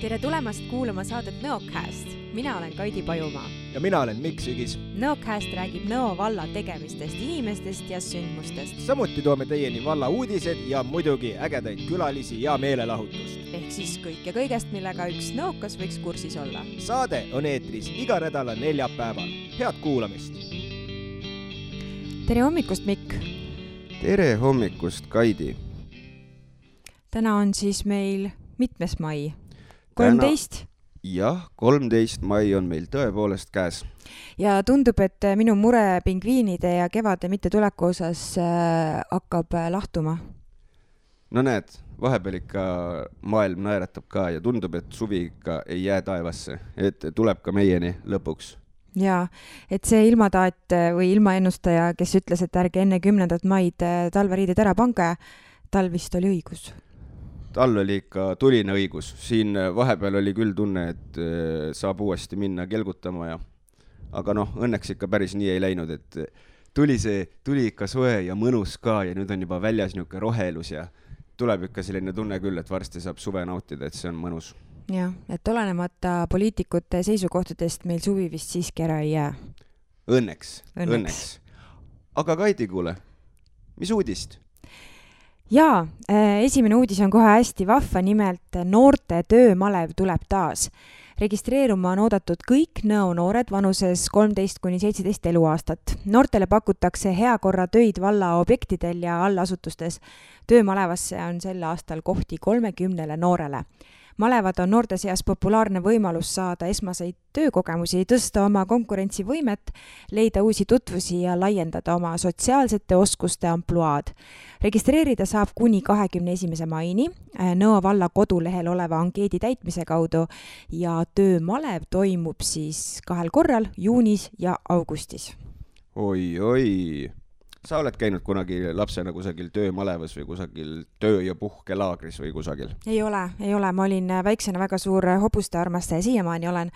Tere tulemast kuulama saadet Nõocast. Mina olen Kaidi Pajumaa. Ja mina olen Mikk Sügis. Nõocast räägib Nõo valla tegemistest, inimestest ja sündmustest. Samuti toome teieni valla uudised ja muidugi ägedaid külalisi ja meelelahutust. Ehk siis kõik ja kõigest, millega üks nõokas võiks kursis olla. Saade on eetris iga nädala neljapäeval. Head kuulamist! Tere hommikust, Mikk! Tere hommikust, Kaidi! Täna on siis meil mitmes mai? 13? Jah, 13 mai on meil tõepoolest käes. Ja tundub, et minu mure pingviinide ja kevade mitte tuleku osas hakkab lahtuma. No näed, vahepeal ikka maailm naeratab ka ja tundub, et suvi ikka ei jää taevasse, et tuleb ka meieni lõpuks. Jaa, et see ilmataat või ilmaennustaja, kes ütles, et ärge enne 10. maid talveriided ära pange, tal vist oli õigus. Tal oli ikka tuline õigus. Siin vahepeal oli küll tunne, et saab uuesti minna kelgutama aga õnneks ikka päris nii ei läinud, et tuli ikka soe ja mõnus ka ja nüüd on juba väljas niuke rohelus ja tuleb ikka selline tunne küll, et varsti saab suve nautida, et see on mõnus. Jah, et olenemata poliitikute seisukohtadest meil suvi vist siiski ära ei jää. Õnneks. Aga Kaidi, kuule, mis uudist? Jaa, esimene uudis on kohe hästi vahva, nimelt noorte töömalev tuleb taas. Registreeruma on oodatud kõik Nõo noored vanuses 13–17 eluaastat. Noortele pakutakse heakorra töid valla objektidel ja allasutustes. Töömalevasse on sel aastal kohti 30 noorele. Malevad on noorte seas populaarne võimalus saada esmaseid töökogemusi, tõsta oma konkurentsivõimet, leida uusi tutvusi ja laiendada oma sotsiaalsete oskuste ampluaad. Registreerida saab kuni 21. maini Nõo valla kodulehel oleva ankeedi täitmise kaudu ja töömalev toimub siis 2 korral, juunis ja augustis. Oi. Sa oled käinud kunagi lapsena kusagil töömalevas või kusagil töö- ja puhkelaagris või kusagil? Ei ole. Ma olin väiksena väga suur hobuste armastaja, siiamaani olen,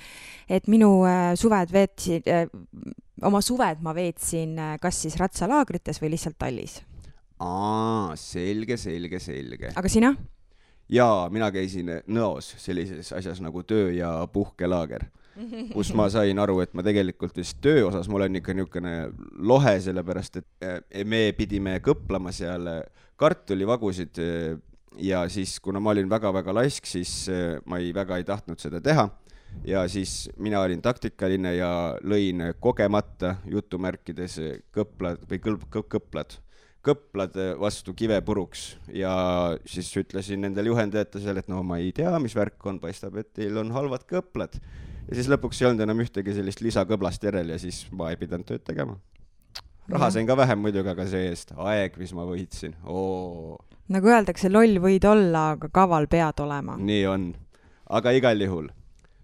et minu oma suved ma veetsin kas siis ratsalaagrites või lihtsalt tallis. Selge. Aga sina? Jaa, mina käisin Nõos sellises asjas nagu töö- ja puhkelaager, kus ma sain aru, et ma tegelikult vist töö osas ma olen ikka niisugune lohe, sellepärast, et me pidime kõplama seal kartulivagusid ja siis, kuna ma olin väga-väga laisk, siis ma väga ei tahtnud seda teha ja siis mina olin taktikaline ja lõin kogemata jutumärkides kõplad vastu kive puruks ja siis ütlesin nendel juhendajatele, et ma ei tea, mis värk on, paistab, et teil on halvad kõplad. Ja siis lõpuks ei olnud enam ühtegi sellist lisakõblast järel ja siis ma ei pidanud tööd tegema. Raha sain ka vähem muidugi, aga see eest aeg, mis ma võitsin. Nagu öeldakse, loll võid olla, aga kaval pead olema. Nii on. Aga igal juhul.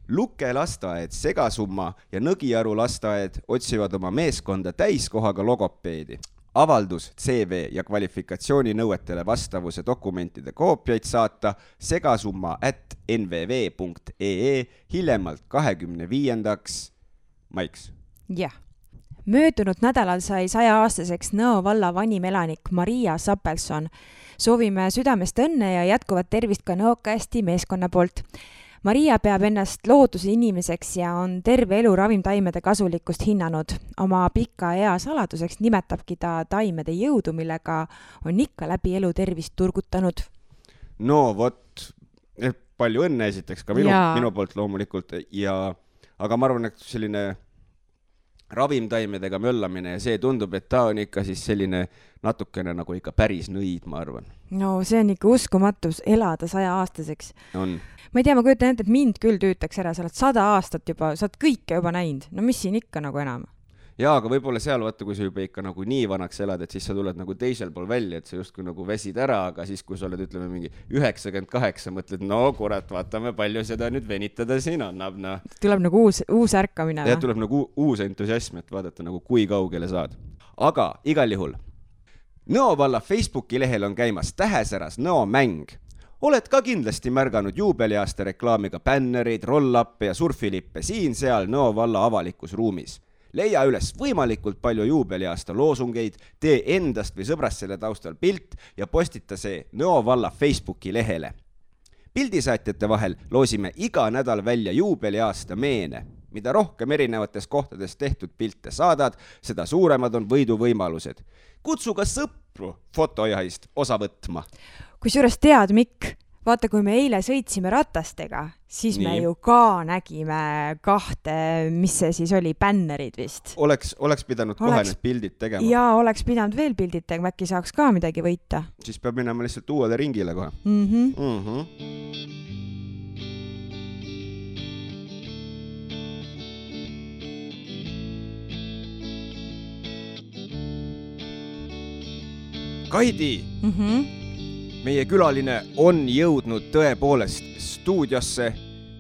Luke lasteaed, Segasumma ja Nõgiaru lasteaed otsivad oma meeskonda täiskohaga logopeedi. Avaldus, CV ja kvalifikatsiooni nõuetele vastavuse dokumentide koopiaid saata segasumma@nvv.ee hiljemalt 25. maiks. Jah. Möödunud nädalal sai 100-aastaseks Nõo valla vanim elanik Maria Sapelson. Soovime südamest õnne ja jätkuvat tervist ka Nõocasti meeskonna poolt. Maria peab ennast looduse inimeseks ja on terve elu ravimtaimede kasulikkust hinnanud. Oma pika ea saladuseks nimetabki ta taimede jõudu, millega on ikka läbi elu tervist turgutanud. No vot, palju õnne esiteks ka minu poolt loomulikult, aga ma arvan, et selline ravimtaimedega möllamine ja see tundub, et ta on ikka siis selline natukene nagu ikka päris nõid, ma arvan. No see on ikka uskumatus elada 100-aastaseks. On. Ma ei tea, ma kujutan ette, et mind küll tüütaks ära, sa oled 100 aastat juba, sa oled kõike juba näinud. No mis siin ikka nagu enam? Jaa, aga võib-olla seal vaata, kui sa juba ikka nagu nii vanaks elad, et siis sa tuled nagu teisel pool välja, et sa justkui nagu väsid ära, aga siis kui sa oled, ütleme, mingi 98, mõtled, no kurat, vaatame, palju seda nüüd venitada siin annab. Tuleb nagu uus ärkamine. Ja tuleb nagu uus entusiasm, et vaadata nagu kui kaugele saad. Aga igal juhul, Nõo valla Facebooki lehel on käimas tähesäras Nõo mäng. Oled ka kindlasti märganud juubeliaasta reklaamiga bännereid, roll-uppe ja surfilippe siin-seal Nõo valla avalikus ruumis. Leia üles võimalikult palju juubeliaasta loosungeid, tee endast või sõbrast selle taustal pilt ja postita see Nõo valla Facebooki lehele. pildisaatjate vahel loosime iga nädal välja juubeliaasta meene. Mida rohkem erinevates kohtades tehtud pilte saadad, seda suuremad on võiduvõimalused. Kutsu ka sõpru fotojahist osa võtma. Kusjuures tead, Mikk, vaata, kui me eile sõitsime ratastega, siis me ju ka nägime 2, mis see siis oli, bännerid vist. Oleks pidanud kohe need pildid tegema. Jaa, oleks pidanud veel pildid tegema, äkki saaks ka midagi võita. Siis peab minema lihtsalt uuele ringile kohe. Kaidi, meie külaline on jõudnud tõepoolest stuudiosse,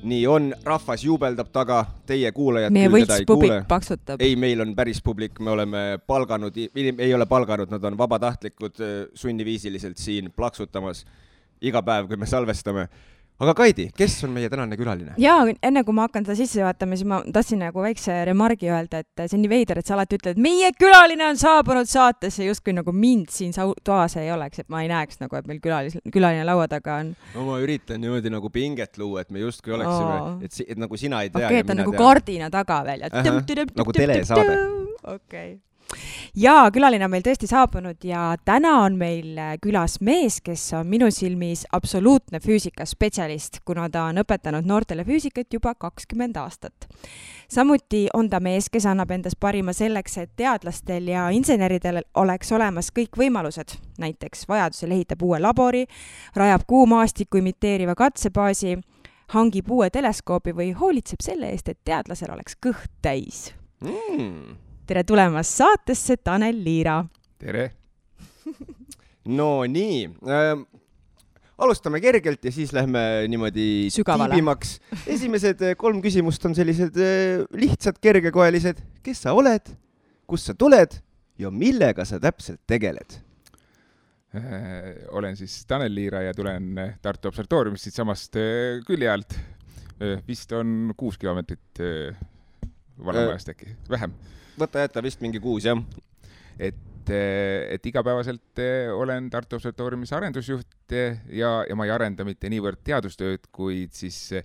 nii on, rahvas juubeldab taga, teie kuulajad meie võltspublik paksutab. Ei, meil on päris publik, me oleme palganud, ei ole palganud, nad on vabatahtlikud sunniviisiliselt siin plaksutamas iga päev, kui me salvestame. Aga Kaidi, kes on meie tänane külaline? Jaa, enne kui ma hakkan seda sisse vaatama, siis ma tahtsin nagu väikse remargi öelda, et see on nii veider, et sa alati ütled, et meie külaline on saabunud saatesse, justkui nagu mind siin toas ei oleks, et ma ei näeks nagu, et meil külaline laua taga on. No ma üritan niimoodi nagu pinget luua, et me justkui oleksime, et nagu sina ei tea. Okei, et on nagu kardina taga veel. Nagu telesaade. Okei. Ja külaline on meil tõesti saabunud ja täna on meil külas mees, kes on minu silmis absoluutne füüsikaspetsialist, kuna ta on õpetanud noortele füüsikat juba 20 aastat. Samuti on ta mees, kes annab endas parima selleks, et teadlastel ja inseneridel oleks olemas kõik võimalused. Näiteks vajadusel ehitab uue labori, rajab kuumaastiku imiteeriva katsebaasi, hangib uue teleskoobi või hoolitseb selle eest, et teadlasel oleks kõht täis. Tere tulemast saatesse, Tanel Liira. Tere. No nii, alustame kergelt ja siis lähme niimoodi tiibimaks. Esimesed 3 küsimust on sellised lihtsad, kergekoelised. Kes sa oled, kust sa tuled ja millega sa täpselt tegeled? Olen siis Tanel Liira ja tulen Tartu Observatoriumist siit samast külje alt. Vist on 6 kilomeetrit vanemajast äkki, vähem. Võta jätta vist mingi 6, jah. Et igapäevaselt olen Tartu Observatoriumis arendusjuht ja ma ei arenda mitte niivõrd teadustööd, kuid siis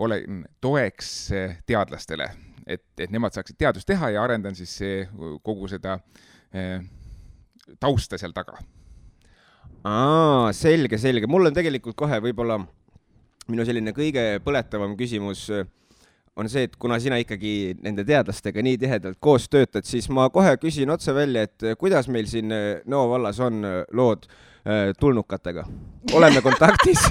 olen toeks teadlastele, et nemad saaksid teadust teha ja arendan siis kogu seda tausta seal taga. Selge. Mul on tegelikult kohe võib-olla minu selline kõige põletavam küsimus on see, et kuna sina ikkagi nende teadlastega nii tihedalt koos töötad, siis ma kohe küsin otse välja, et kuidas meil siin Nõo vallas on lood tulnukatega? Oleme kontaktis?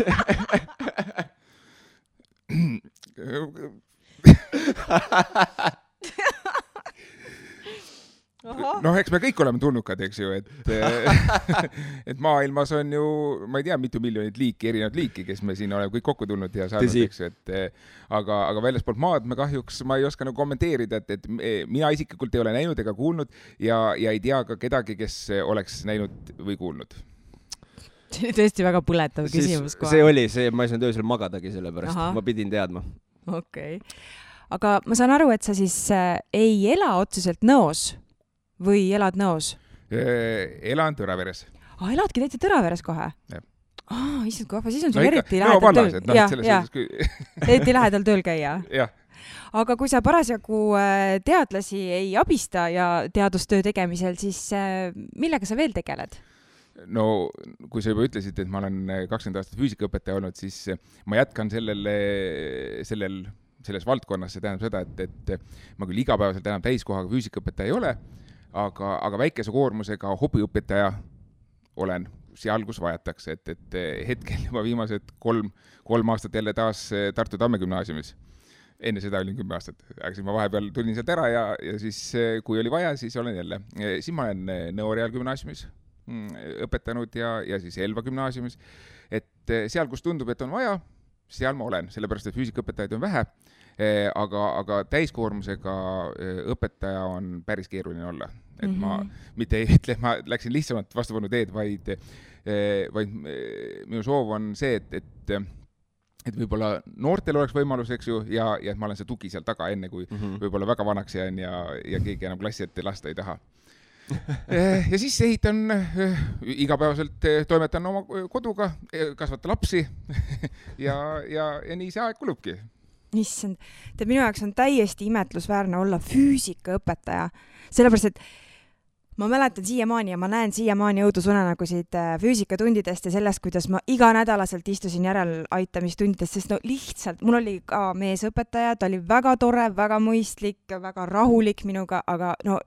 No, eks me kõik oleme tulnukad, eks ju, et maailmas on ju, ma ei tea, mitu miljonit liiki, erinevat liiki, kes me siin oleme kõik kokku tulnud ja saanud, eks ju, aga väljaspoolt maad me kahjuks, ma ei oska nagu kommenteerida, et mina isiklikult ei ole näinud ega kuulnud ja ei tea ka kedagi, kes oleks näinud või kuulnud. See oli tõesti väga põletav küsimus kohe. See oli see, ma ei saanud öösel magadagi selle pärast, ma pidin teadma. Okei. Aga ma saan aru, et sa siis ei ela otseselt Nõos või elad Nõos? Elan Tõraveres. Eladki täitsa Tõraveres kohe? Jah. Issand, kui siis on sul eriti lähedal tööl. Eriti lähedal tööl käia? Jah. Aga kui sa parasjagu teadlasi ei abista ja teadustöö tegemisel, siis millega sa veel tegeled? No, kui sa juba ütlesid, et ma olen 20 aastat füüsikaõpetaja olnud, siis ma jätkan selles valdkonnas, see tähendab seda, et ma küll igapäevaselt enam täiskohaga füüsikaõpetaja ei ole, aga väikese koormusega hobiõpetaja olen seal, kus vajatakse, et hetkel juba viimased 3 aastat jälle taas Tartu Tamme gümnaasiumis. Enne seda olin 10 aastat, aga siis ma vahepeal tulin sealt ära ja siis kui oli vaja, siis olen jälle. Siis ma olen Nõo Reaalgümnaasiumis õpetanud ja siis Elva gümnaasiumis, et seal, kus tundub, et on vaja, seal ma olen, sellepärast, et füüsikaõpetajaid on vähe, aga täiskoormusega õpetaja on päris keeruline olla. Et ma mitte ei ütle, ma läksin lihtsamalt vastupanu teed, vaid minu soov on see, et võib-olla noortel oleks võimalus, eks ju, ja et ma olen see tugi seal taga enne, kui võib-olla väga vanaks jään ja keegi enam klassi ette lasta ei taha. ja siis ehitan igapäevaselt, toimetan oma koduga, kasvatan lapsi ja nii see aeg kulubki. Issand, minu jaoks on täiesti imetlusväärne olla füüsikaõpetaja, sellepärast et ma mäletan siiamaani ja ma näen siiamaani õudusunenägusid füüsikatundidest ja sellest, kuidas ma iganädalaselt istusin järeleaitamistundidest, sest no lihtsalt, mul oli ka meesõpetaja, ta oli väga tore, väga mõistlik, väga rahulik minuga, aga no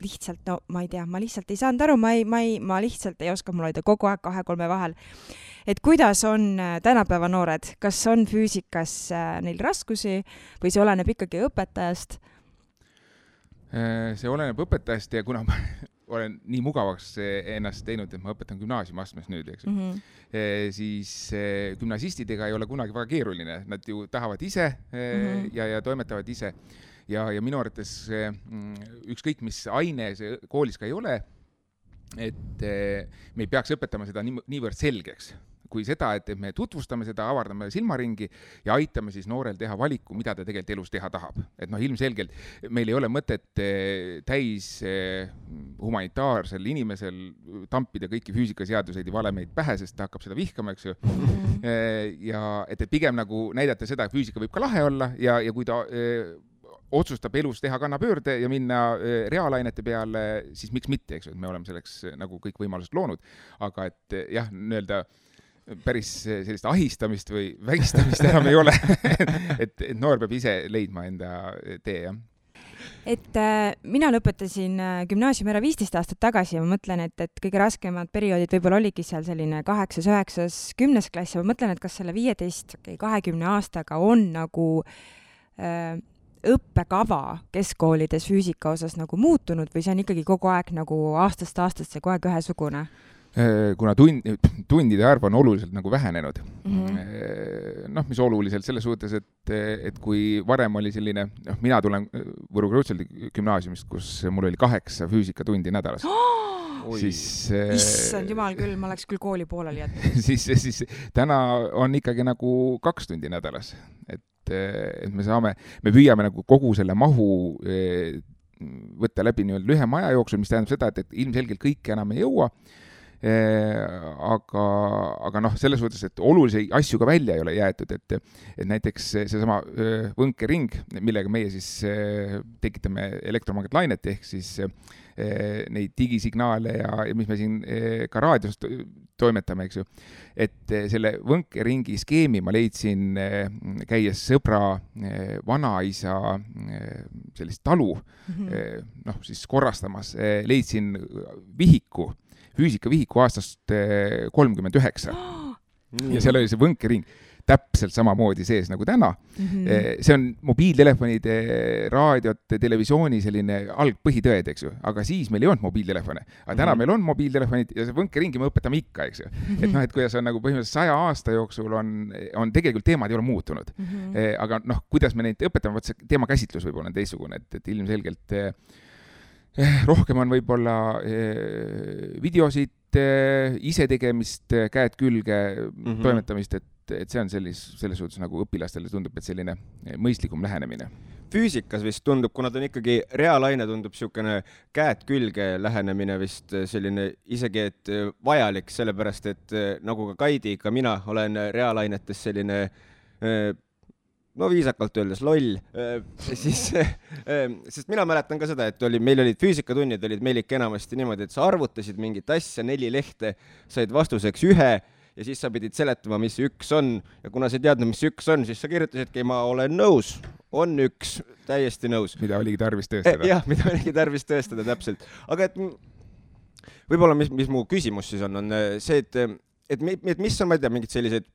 lihtsalt, no ma ei tea, ma lihtsalt ei saanud aru, ma lihtsalt ei oska, mul oli ta kogu aeg 2-3 vahel. Et kuidas on tänapäeva noored, kas on füüsikas neil raskusi või see oleneb ikkagi õpetajast? See oleneb õpetajast ja kuna ma olen nii mugavaks ennast teinud, et ma õpetan gümnaasiumiastmes nüüd, eks ju. Siis gümnasistidega ei ole kunagi väga keeruline, nad ju tahavad ise ja toimetavad ise ja minu arvates ükskõik mis aine see koolis ka ei ole, et me ei peaks õpetama seda niivõrd selgeks kui seda, et me tutvustame seda, avardame silmaringi ja aitame siis noorel teha valiku, mida ta tegelikult elus teha tahab. Et ilmselgelt meil ei ole mõtet täis humanitaarsel inimesel tampida kõiki füüsikaseaduseid ja valemeid pähe, sest ta hakkab seda vihkama, eks ju. Ja et pigem nagu näidata seda, et füüsika võib ka lahe olla ja kui ta otsustab elus teha kannapöörde ja minna reaalainete peale, siis miks mitte, eks ju, et me oleme selleks nagu kõik võimalused loonud. Aga et jah, öelda päris sellist ahistamist või vägistamist enam ei ole. et noor peab ise leidma enda tee, jah. Et mina lõpetasin gümnaasiumi ära 15 aastat tagasi ja ma mõtlen, et kõige raskemad perioodid võib-olla oligi seal selline 8., 9., 10. klass ja ma mõtlen, et kas selle 15-20 aastaga on nagu õppekava keskkoolides füüsika osas nagu muutunud või see on ikkagi kogu aeg nagu aastast aastasse kogu aeg ühesugune? Kuna tundide arv on oluliselt nagu vähenenud. Mis oluliselt selles suhtes, et kui varem oli selline, mina tulen Võru Kreutzwaldi gümnaasiumist, kus mul oli 8 füüsikatundi nädalas. Siis, issand jumal küll, ma oleks küll kooli pooleli jätnud. siis täna on ikkagi nagu 2 tundi nädalas. Et me püüame nagu kogu selle mahu võtta läbi lühema aja jooksul, mis tähendab seda, et ilmselgelt kõike enam ei jõua. Aga selles suhtes, et olulisi asju ka välja ei ole jäetud, et näiteks seesama võnkering, millega meie siis tekitame elektromagnetlainet ehk siis neid digisignaale ja mis me siin ka raadios toimetame, eks ju. Et selle võnkeringi skeemi ma leidsin käies sõbra vanaisa sellist talu siis korrastamas, leidsin vihiku, füüsikavihiku aastast 39. Ja seal oli see võnkering täpselt samamoodi sees nagu täna. See on mobiiltelefonide, raadiot, televisiooni selline algpõhitõed, eks ju. Aga siis meil ei olnud mobiiltelefone. Aga täna meil on mobiiltelefonid ja see võnkeringi me õpetame ikka, eks ju. Et kuidas on nagu põhimõtteliselt 100 aasta jooksul on tegelikult teemad ei ole muutunud. Aga kuidas me neid õpetame, võt see teemakäsitlus võib olla teistsugune, et ilmselgelt rohkem on võib-olla videosid, ise tegemist, käed külge, toimetamist, et see on selles suhtes nagu õpilastele tundub, et selline mõistlikum lähenemine. Füüsikas vist tundub, kuna ta on ikkagi reaalaine, tundub niisugune käed külge lähenemine vist selline isegi, et vajalik, sellepärast, et nagu ka Kaidi, ka mina olen reaalainetes selline viisakalt öeldes loll, sest mina mäletan ka seda, et meil olid füüsikatunnid, olid meil ikka enamasti niimoodi, et sa arvutasid mingit asja, 4 lehte, said vastuseks 1 ja siis sa pidid seletama, mis 1 on ja kuna sa ei teadnud, mis 1 on, siis sa kirjutasidki, ma olen nõus, on 1, täiesti nõus. Mida oligi tarvis tõestada. Jah, mida oligi tarvis tõestada, täpselt. Aga et võib-olla, mis mu küsimus siis on see, et mis on, ma ei tea, mingid sellised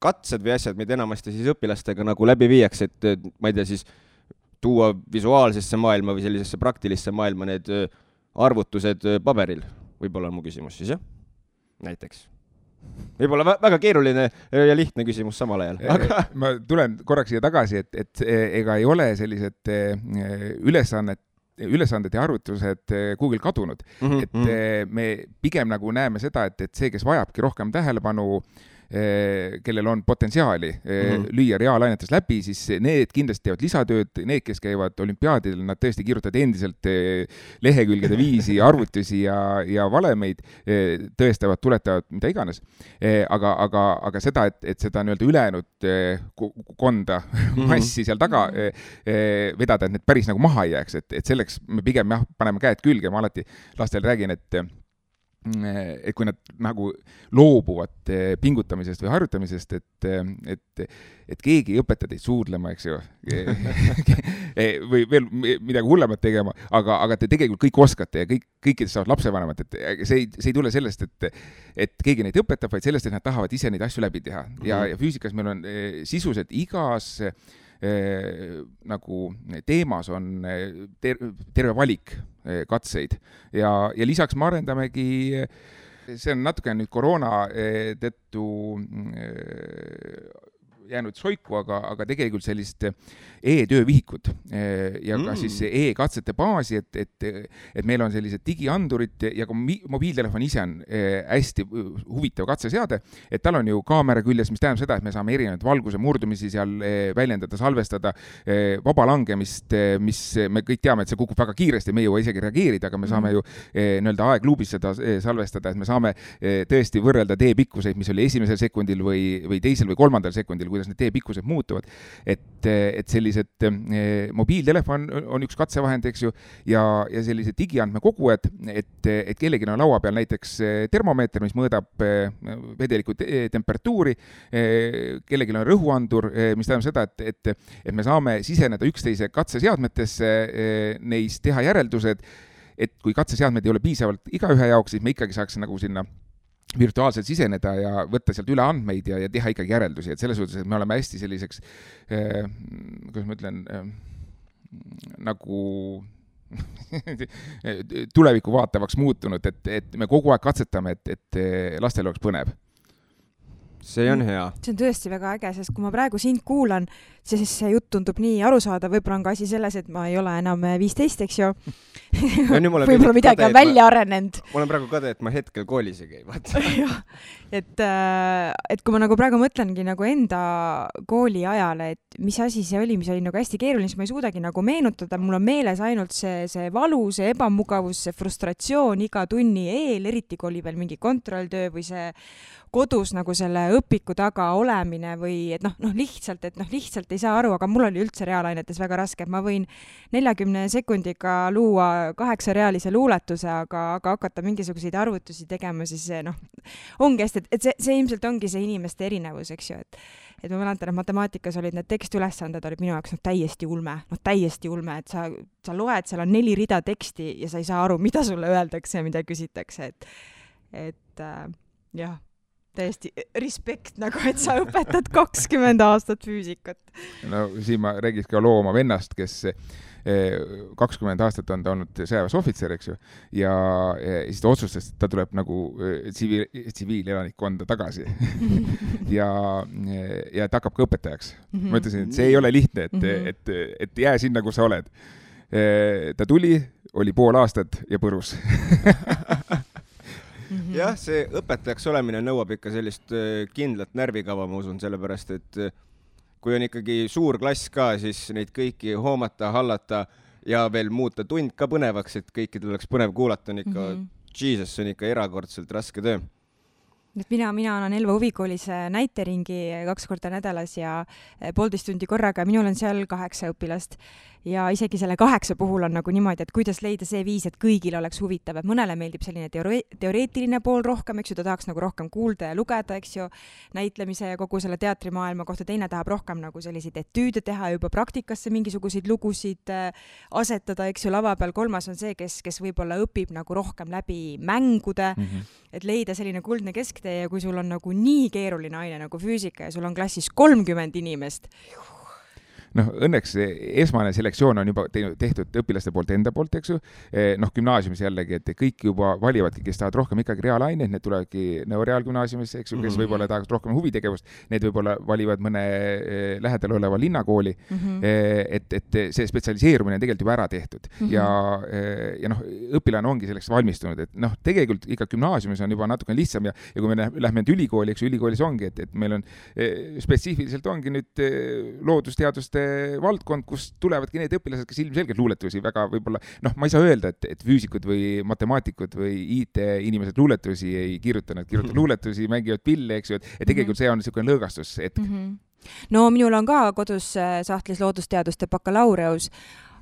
katsed või asjad, mida enamasti siis õpilastega nagu läbi viiaks, et ma ei tea, siis tuua visuaalsesse maailma või sellisesse praktilisse maailma need arvutused paberil. Võib-olla on mu küsimus siis, jah? Näiteks. Võib-olla väga keeruline ja lihtne küsimus samal ajal. Aga... Ma tulen korraks siia tagasi, et ega ei ole sellised ülesanded ja arvutused Google kadunud. Et me pigem nagu näeme seda, et see, kes vajabki rohkem tähelepanu, kellel on potentsiaali lüüa reaalainetes läbi, siis need kindlasti teevad lisatööd, need, kes käivad olümpiaadidel, nad tõesti kirjutavad endiselt lehekülgede viisi, arvutusi ja valemeid, tõestavad, tuletavad, mida iganes. Aga seda, et seda nii-öelda ülejäänud konda massi seal taga vedada, et need päris nagu maha ei jääks, et selleks me pigem paneme käed külge, ma alati lastele räägin, et kui nad nagu loobuvad pingutamisest või harjutamisest, et keegi ei õpeta teid suudlema, eks ju, või veel midagi hullemat tegema, aga te tegelikult kõik oskate ja kõikidest saavad lapsevanemad, et see ei tule sellest, et keegi neid õpetab, vaid sellest, et nad tahavad ise neid asju läbi teha. Ja füüsikas meil on sisuliselt igas nagu teemas on terve valik katseid ja lisaks me arendamegi, see on natuke nüüd koroona tõttu jäänud soiku, aga tegelikult sellist e-töövihikut ja ka siis e-katsete baasi, et meil on sellised digiandurid ja ka mobiiltelefon ise on hästi huvitav katseseade, et tal on ju kaamera küljes, mis tähendab seda, et me saame erinevaid valguse murdumisi seal väljendada, salvestada, vaba langemist, mis me kõik teame, et see kukub väga kiiresti, me ei jõua isegi reageerida, aga me saame ju nii-öelda aegluubis seda salvestada, et me saame tõesti võrrelda teepikkuseid, mis oli esimesel sekundil või teisel või kolmandal sekundil, kuidas need teepikkused muutuvad, et sellised mobiiltelefon on üks katsevahend, eks ju, ja sellised digiandmekogujad, et kellelgi on laua peal näiteks termomeeter, mis mõõdab vedeliku temperatuuri, kellelgi on rõhuandur, mis tähendab seda, et me saame siseneda üksteise katseseadmetesse, neis teha järeldused, et kui katseseadmed ei ole piisavalt igaühe jaoks, siis me ikkagi saaks nagu sinna virtuaalselt siseneda ja võtta sealt üle andmeid ja teha ikkagi järeldusi, et selles suhtes, et me oleme hästi selliseks, kuidas ma ütlen, nagu tulevikku vaatavaks muutunud, et me kogu aeg katsetame, et lastel oleks põnev. See on hea. See on tõesti väga äge, sest kui ma praegu sind kuulan, siis see jutt tundub nii arusaada, võib-olla on ka asi selles, et ma ei ole enam 15, eks ju. Võib-olla midagi on välja arenenud. Ma olen praegu kade, et ma hetkel koolis ei käi, vaata. et kui ma nagu praegu mõtlengi nagu enda kooli ajale, et mis asi see oli nagu hästi keeruline, siis ma ei suudagi nagu meenutada, mul on meeles ainult see valu, see ebamugavus, see frustratsioon iga tunni eel, eriti kui oli veel mingi kontrolltöö või see kodus nagu selle õpiku taga olemine või et lihtsalt ei saa aru, aga mul oli üldse reaalainetes väga raske, et ma võin 40 sekundiga luua 8-realise luuletuse, aga hakata mingisuguseid arvutusi tegema, siis ongi hästi, et see ilmselt ongi see inimeste erinevus, eks ju, et ma mäletan, et matemaatikas olid need tekstiülesanded olid minu jaoks täiesti ulme, et sa loed, seal on 4 rida teksti ja sa ei saa aru, mida sulle öeldakse ja mida küsitakse, et jah, täiesti respekt nagu, et sa õpetad 20 aastat füüsikat. No siin ma räägis ka loo oma vennast, kes 20 aastat on ta olnud sõjaväes ohvitser, eks ju, ja siis ta otsustas, et ta tuleb nagu tsiviilelanikkonda tagasi ja ta hakkab ka õpetajaks. Ma ütlesin, et see ei ole lihtne, et jää sinna, kus sa oled. Ta tuli, oli pool aastat ja põrus. Jah, see õpetajaks olemine nõuab ikka sellist kindlat närvikava, ma usun, sellepärast, et kui on ikkagi suur klass ka, siis neid kõiki hoomata, hallata ja veel muuta tund ka põnevaks, et kõikidel oleks põnev kuulata, on ikka, Jesus, see on ikka erakordselt raske töö. Mina annan Elva huvikoolis näiteringi 2 korda nädalas ja 1,5 tundi korraga, minul on seal 8 õpilast ja isegi selle 8 puhul on nagu niimoodi, et kuidas leida see viis, et kõigil oleks huvitav, et mõnele meeldib selline teoreetiline pool rohkem, eks ju, ta tahaks nagu rohkem kuulda ja lugeda, eks ju, näitlemise ja kogu selle teatrimaailma kohta, teine tahab rohkem nagu selliseid etüüde teha, juba praktikasse mingisuguseid lugusid asetada, eks ju, lava peal, 3 on see, kes võib-olla õpib nagu rohkem läbi mängude, et leida selline kuldne kesktee ja kui sul on nagu nii keeruline aine nagu füüsika ja sul on klassis 30 inimest, noh, õnneks esmane selektsioon on juba tehtud õpilaste poolt enda poolt, eks ju. Noh, gümnaasiumis jällegi, et kõik juba valivadki, kes tahavad rohkem ikkagi reaalaineid, need tulevadki Reaalgümnaasiumis, eks ju, kes võib-olla tahavad rohkem huvitegevust, need võib-olla valivad mõne lähedal oleva linnakooli. Et see spetsialiseerumine on tegelikult juba ära tehtud. Ja noh, õpilane ongi selleks valmistunud, et noh, tegelikult ikka gümnaasiumis on juba natuke lihtsam ja kui me lähme nüüd ülikooli, eks ju, ülikoolis ongi, et meil on spetsiifiliselt ongi nüüd loodusteaduste valdkond, kus tulevadki need õpilased, kes ilmselgelt luuletusi väga võib-olla, noh, ma ei saa öelda, et füüsikud või matemaatikud või IT-inimesed luuletusi ei kirjuta, nad kirjutavad luuletusi, mängivad pille, eks ju, et tegelikult see on niisugune lõõgastus hetk. No minul on ka kodus sahtlis loodusteaduste bakalaureus,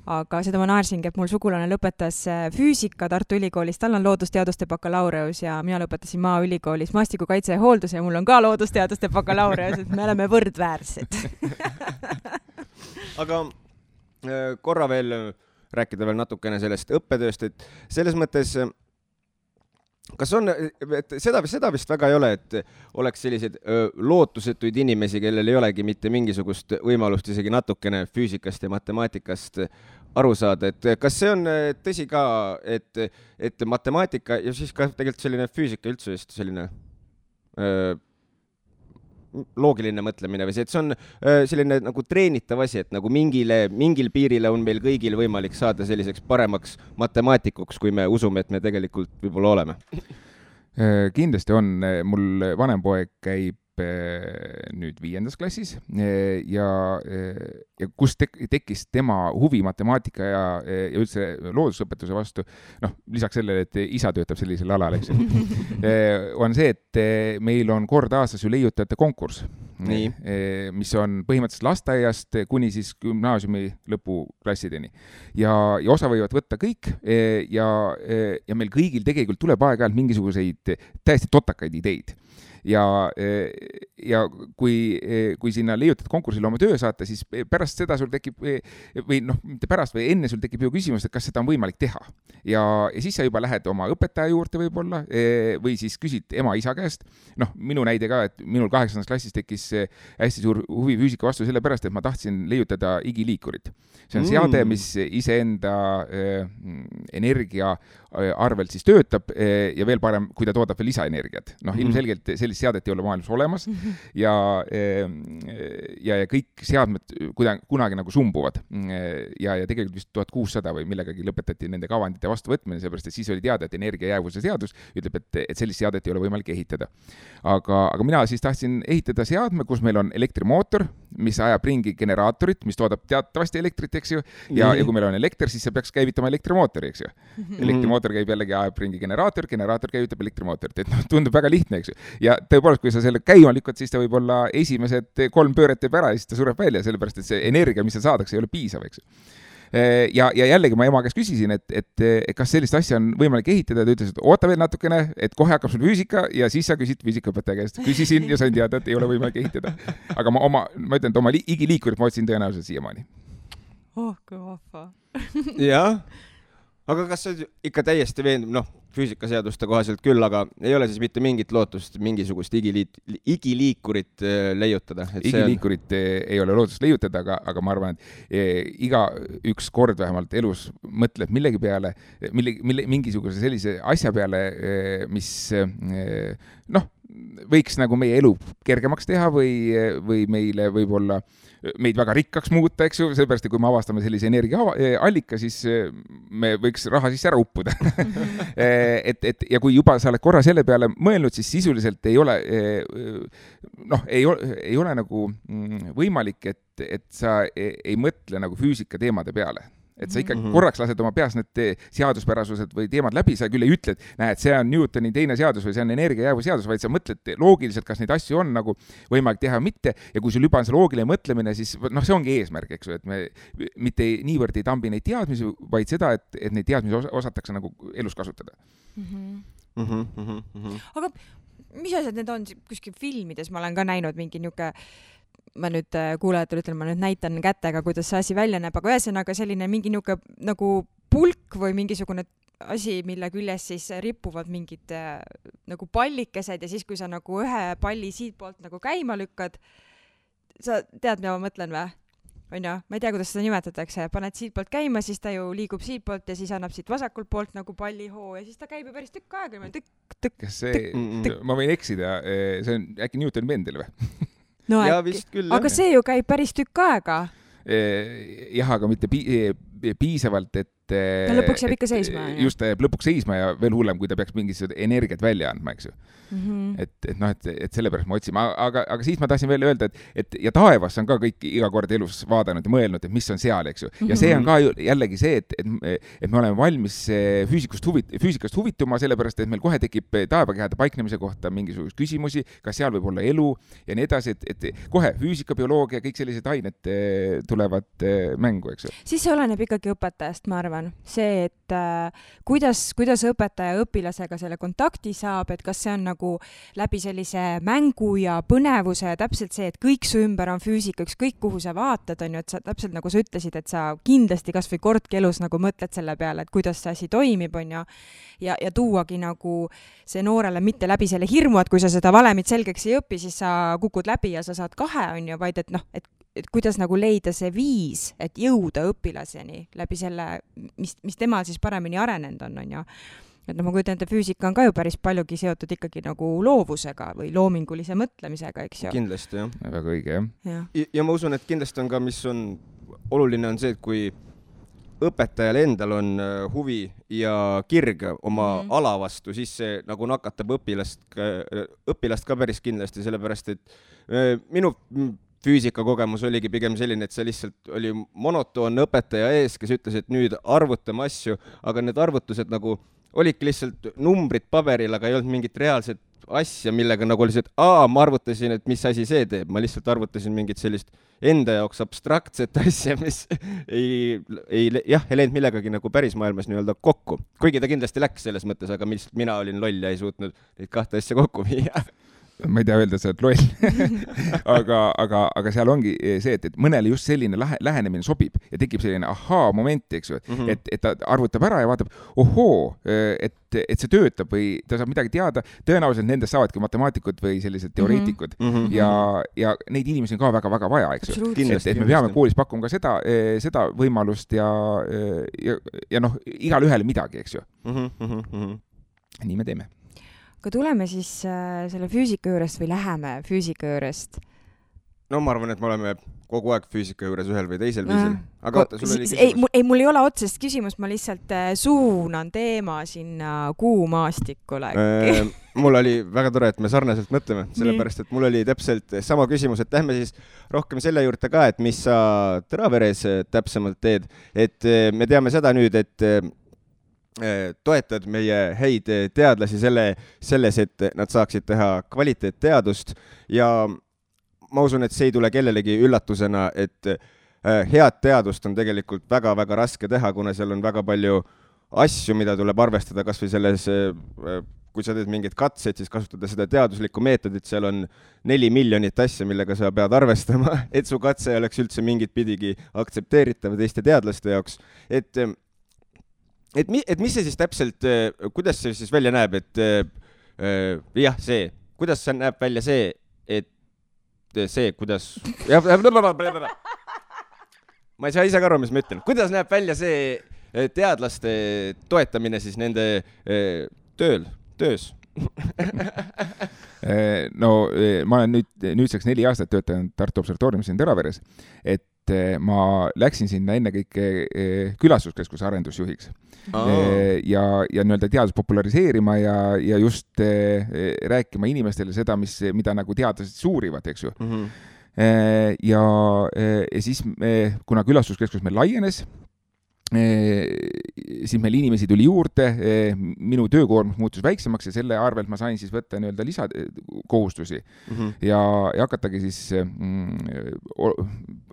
aga seda ma naersingi, et mul sugulane lõpetas füüsika Tartu Ülikoolis, tal on loodusteaduste bakalaureus ja mina lõpetasin Maaülikoolis maastikukaitse ja hoolduse ja mul on ka loodusteaduste bakalaureus, et me oleme võrdväärsed. Aga korra veel rääkida veel natukene sellest õppetööst, et selles mõttes kas on, et seda vist väga ei ole, et oleks selliseid lootusetuid inimesi, kellel ei olegi mitte mingisugust võimalust isegi natukene füüsikast ja matemaatikast aru saada, et kas see on tõsi ka, et matemaatika ja siis ka tegelikult selline füüsika üldse vist selline loogiline mõtlemine või see, et see on selline nagu treenitav asi, et nagu mingil piirile on meil kõigil võimalik saada selliseks paremaks matemaatikuks, kui me usume, et me tegelikult võib-olla oleme. Kindlasti on, mul vanem poeg käib nüüd 5. klassis ja kus tekkis tema huvi matemaatika ja üldse loodusõpetuse vastu, noh, lisaks sellele, et isa töötab sellisel alal, eks ju, on see, et meil on kord aastas ju leiutajate konkurss, mis on põhimõtteliselt lasteaiast kuni siis gümnaasiumi lõpuklassideni. Ja osa võivad võtta kõik ja meil kõigil tegelikult tuleb aeg-ajalt mingisuguseid täiesti totakaid ideid. Ja kui sinna leiutad konkursile oma töö saata, siis pärast seda sul tekib, või noh, mitte pärast, või enne sul tekib ju küsimus, et kas seda on võimalik teha. Ja siis sa juba lähed oma õpetaja juurde võib-olla, või siis küsid ema-isa käest. Noh, minu näide ka, et minul 8. klassis tekkis hästi suur huvi füüsika vastu sellepärast, et ma tahtsin leiutada igiliikurit. See on seade, mis iseenda energia arvelt siis töötab ja veel parem, kui ta toodab veel lisaenergiat. Noh, ilmselgelt sellist seadet ei ole maailmas olemas ja kõik seadmed kunagi nagu sumbuvad ja tegelikult vist 1600 või millegagi lõpetati nende kavandite vastuvõtmine, seepärast, et siis oli teada, et energiajäävuse seadus ütleb, et sellist seadet ei ole võimalik ehitada. Aga mina siis tahtsin ehitada seadme, kus meil on elektrimootor, mis ajab ringi generaatorit, mis toodab teatavasti elektrit, eks ju, ja kui meil on elekter, siis see peaks käivitama elektrimootori, eks ju. Elektrimootor käib jällegi, ajab ringi generaator käivitab elektrimootorit, et noh, tundub väga lihtne, eks ju. Ja tõepoolest, kui sa selle käima lükkad, siis ta võib-olla esimesed 3 pööret teeb ära ja siis ta sureb välja, sellepärast, et see energia, mis seal saadakse, ei ole piisav, eks ju. Ja jällegi ma ema käest küsisin, et kas sellist asja on võimalik ehitada, ta ütles, et oota veel natukene, et kohe hakkab sul füüsika ja siis sa küsid füüsikaõpetaja käest. Küsisin ja sain teada, et ei ole võimalik ehitada. Aga ma ütlen, et oma igiliikurit ma otsin tõenäoliselt siiamaani. Oh, kui vahva. Jah. Aga kas see ikka täiesti veendub, noh, füüsikaseaduste kohaselt küll, aga ei ole siis mitte mingit lootust mingisugust igiliikurit leiutada? Igiliikurit ei ole lootust leiutada, aga ma arvan, et iga üks kord vähemalt elus mõtleb millegi peale, mingisuguse sellise asja peale, mis noh, võiks nagu meie elu kergemaks teha või meile võib-olla meid väga rikkaks muuta, eks ju, sellepärast, et kui me avastame sellise energiaallika, siis me võiks raha sisse ära uppuda. Ja kui juba sa oled korra selle peale mõelnud, siis sisuliselt ei ole, noh, ei ole nagu võimalik, et sa ei mõtle nagu füüsika teemade peale. Et sa ikka korraks lased oma peas need seaduspärasused või teemad läbi, sa küll ei ütle, et näed, see on Newtoni teine seadus või see on energiajäävuse seadus, vaid sa mõtled loogiliselt, kas neid asju on nagu võimalik teha või mitte, ja kui sul juba on see loogiline mõtlemine, siis noh, see ongi eesmärk, eks ju, et me mitte niivõrd ei tambi neid teadmisi, vaid seda, et neid teadmisi osatakse nagu elus kasutada. Aga mis asjad need on kuskil filmides, ma olen ka näinud mingi niuke, ma nüüd kuulajatele ütlen, ma nüüd näitan kätega, kuidas see asi välja näeb, aga ühesõnaga selline mingi niuke nagu pulk või mingisugune asi, mille küljes siis ripuvad mingid nagu pallikesed ja siis, kui sa nagu ühe palli siit poolt nagu käima lükkad, sa tead, mida ma mõtlen või? on ju, ma ei tea, kuidas seda nimetatakse, paned siit poolt käima, siis ta ju liigub siit poolt ja siis annab siit vasakult poolt nagu pallihoo ja siis ta käib ju päris tükk aega, tükk. Kas see, ma võin eksida, see on äkki Newton Mendel või? No ja äkki, vist küll, aga see ju käib päris tükk aega. Jah, aga mitte piisavalt, et ta lõpuks jääb ikka seisma. Just, ta jääb lõpuks seisma ja veel hullem, kui ta peaks mingisugust energiat välja andma, eks ju. Et sellepärast ma otsin, aga siis ma tahtsin veel öelda, et ja taevas on ka kõik iga kord elus vaadanud ja mõelnud, et mis on seal, eks ju. Ja see on ka jällegi see, et me oleme valmis füüsikast huvituma, sellepärast, et meil kohe tekib taevakehade paiknemise kohta mingisugust küsimusi, kas seal võib olla elu ja nii edasi, et kohe füüsika, bioloogia, kõik sellised ained tulevad mängu, eks ju. Siis see oleneb ikkagi õpetajast, ma arvan. See, et kuidas õpetaja õpilasega selle kontakti saab, et kas see on nagu läbi sellise mängu ja põnevuse, täpselt see, et kõik su ümber on füüsika, ükskõik kuhu sa vaatad, on ju, et sa täpselt nagu sa ütlesid, et sa kindlasti kas või kordki elus nagu mõtled selle peale, et kuidas see asi toimib, on ju, ja tuuagi nagu see noorele mitte läbi selle hirmu, et kui sa seda valemit selgeks ei õpi, siis sa kukud läbi ja sa saad 2, on ju, vaid et noh, et kuidas nagu leida see viis, et jõuda õpilaseni läbi selle, mis temal siis paremini arenenud on ju. Et ma kujutan, et füüsika on ka ju päris paljugi seotud ikkagi nagu loovusega või loomingulise mõtlemisega, eks ju. Kindlasti, jah. Väga õige, jah. Ja ma usun, et kindlasti on ka, mis on oluline, on see, et kui õpetajal endal on huvi ja kirg oma ala vastu, siis see nagu nakatab õpilast ka päris kindlasti, sellepärast, et minu füüsikakogemus oligi pigem selline, et see lihtsalt oli monotoonne õpetaja ees, kes ütles, et nüüd arvutame asju, aga need arvutused nagu olidki lihtsalt numbrid paberil, aga ei olnud mingit reaalset asja, millega nagu oli see, et ma arvutasin, et mis asi see teeb. Ma lihtsalt arvutasin mingit sellist enda jaoks abstraktset asja, mis ei läinud millegagi nagu päris maailmas nii-öelda kokku. Kuigi ta kindlasti läks selles mõttes, aga mina olin loll ja ei suutnud neid 2 asja kokku viia. Ma ei tea öelda, sa oled loll. aga seal ongi see, et mõnele just selline lähenemine sobib ja tekib selline moment, eks ju, et ta arvutab ära ja vaatab, et see töötab või ta saab midagi teada, tõenäoliselt nendest saavadki matemaatikud või sellised teoreetikud ja neid inimesi on ka väga-väga vaja, eks ju. Et me peame koolis pakkuma ka seda võimalust ja noh, igal ühele midagi, eks ju. Nii me teeme. Aga tuleme siis selle füüsika juurest või läheme füüsika juurest? No ma arvan, et me oleme kogu aeg füüsika juures ühel või teisel viisil. Aga oota, sul oli küsimus? Ei, mul ei ole otsest küsimus, ma lihtsalt suunan teema sinna kuumaastikule. Mul oli väga tore, et me sarnaselt mõtleme, sellepärast, et mul oli täpselt sama küsimus, et lähme siis rohkem selle juurde ka, et mis sa Tõraveres täpsemalt teed. Et me teame seda nüüd, et toetad meie häid teadlasi selles, et nad saaksid teha kvaliteetteadust ja ma usun, et see ei tule kellelegi üllatusena, et head teadust on tegelikult väga-väga raske teha, kuna seal on väga palju asju, mida tuleb arvestada, kas või selles, kui sa teed mingid katsed, siis kasutada seda teaduslikku meetodit, seal on 4 miljonit asja, millega sa pead arvestama, et su katse oleks üldse mingit pidigi aktsepteeritav teiste teadlaste jaoks, et mis see siis täpselt, kuidas see siis välja näeb, et kuidas see näeb välja see, et see, kuidas ma ei saa ise ka aru, mis ma ütlen, kuidas näeb välja see teadlaste toetamine siis nende töös? No ma olen nüüdseks 4 aastat töötanud Tartu Observatooriumis siin Tõraveres, et ma läksin sinna enne kõike külastuskeskuse arendusjuhiks ja nii-öelda teadus populariseerima ja just rääkima inimestele seda, mida nagu teadlased suurivad, eks ju. Ja siis, kuna külastuskeskus meil laienes, siis meil inimesi tuli juurde, minu töökoormus muutus väiksemaks ja selle arvelt ma sain siis võtta nii-öelda lisakohustusi ja hakatagi siis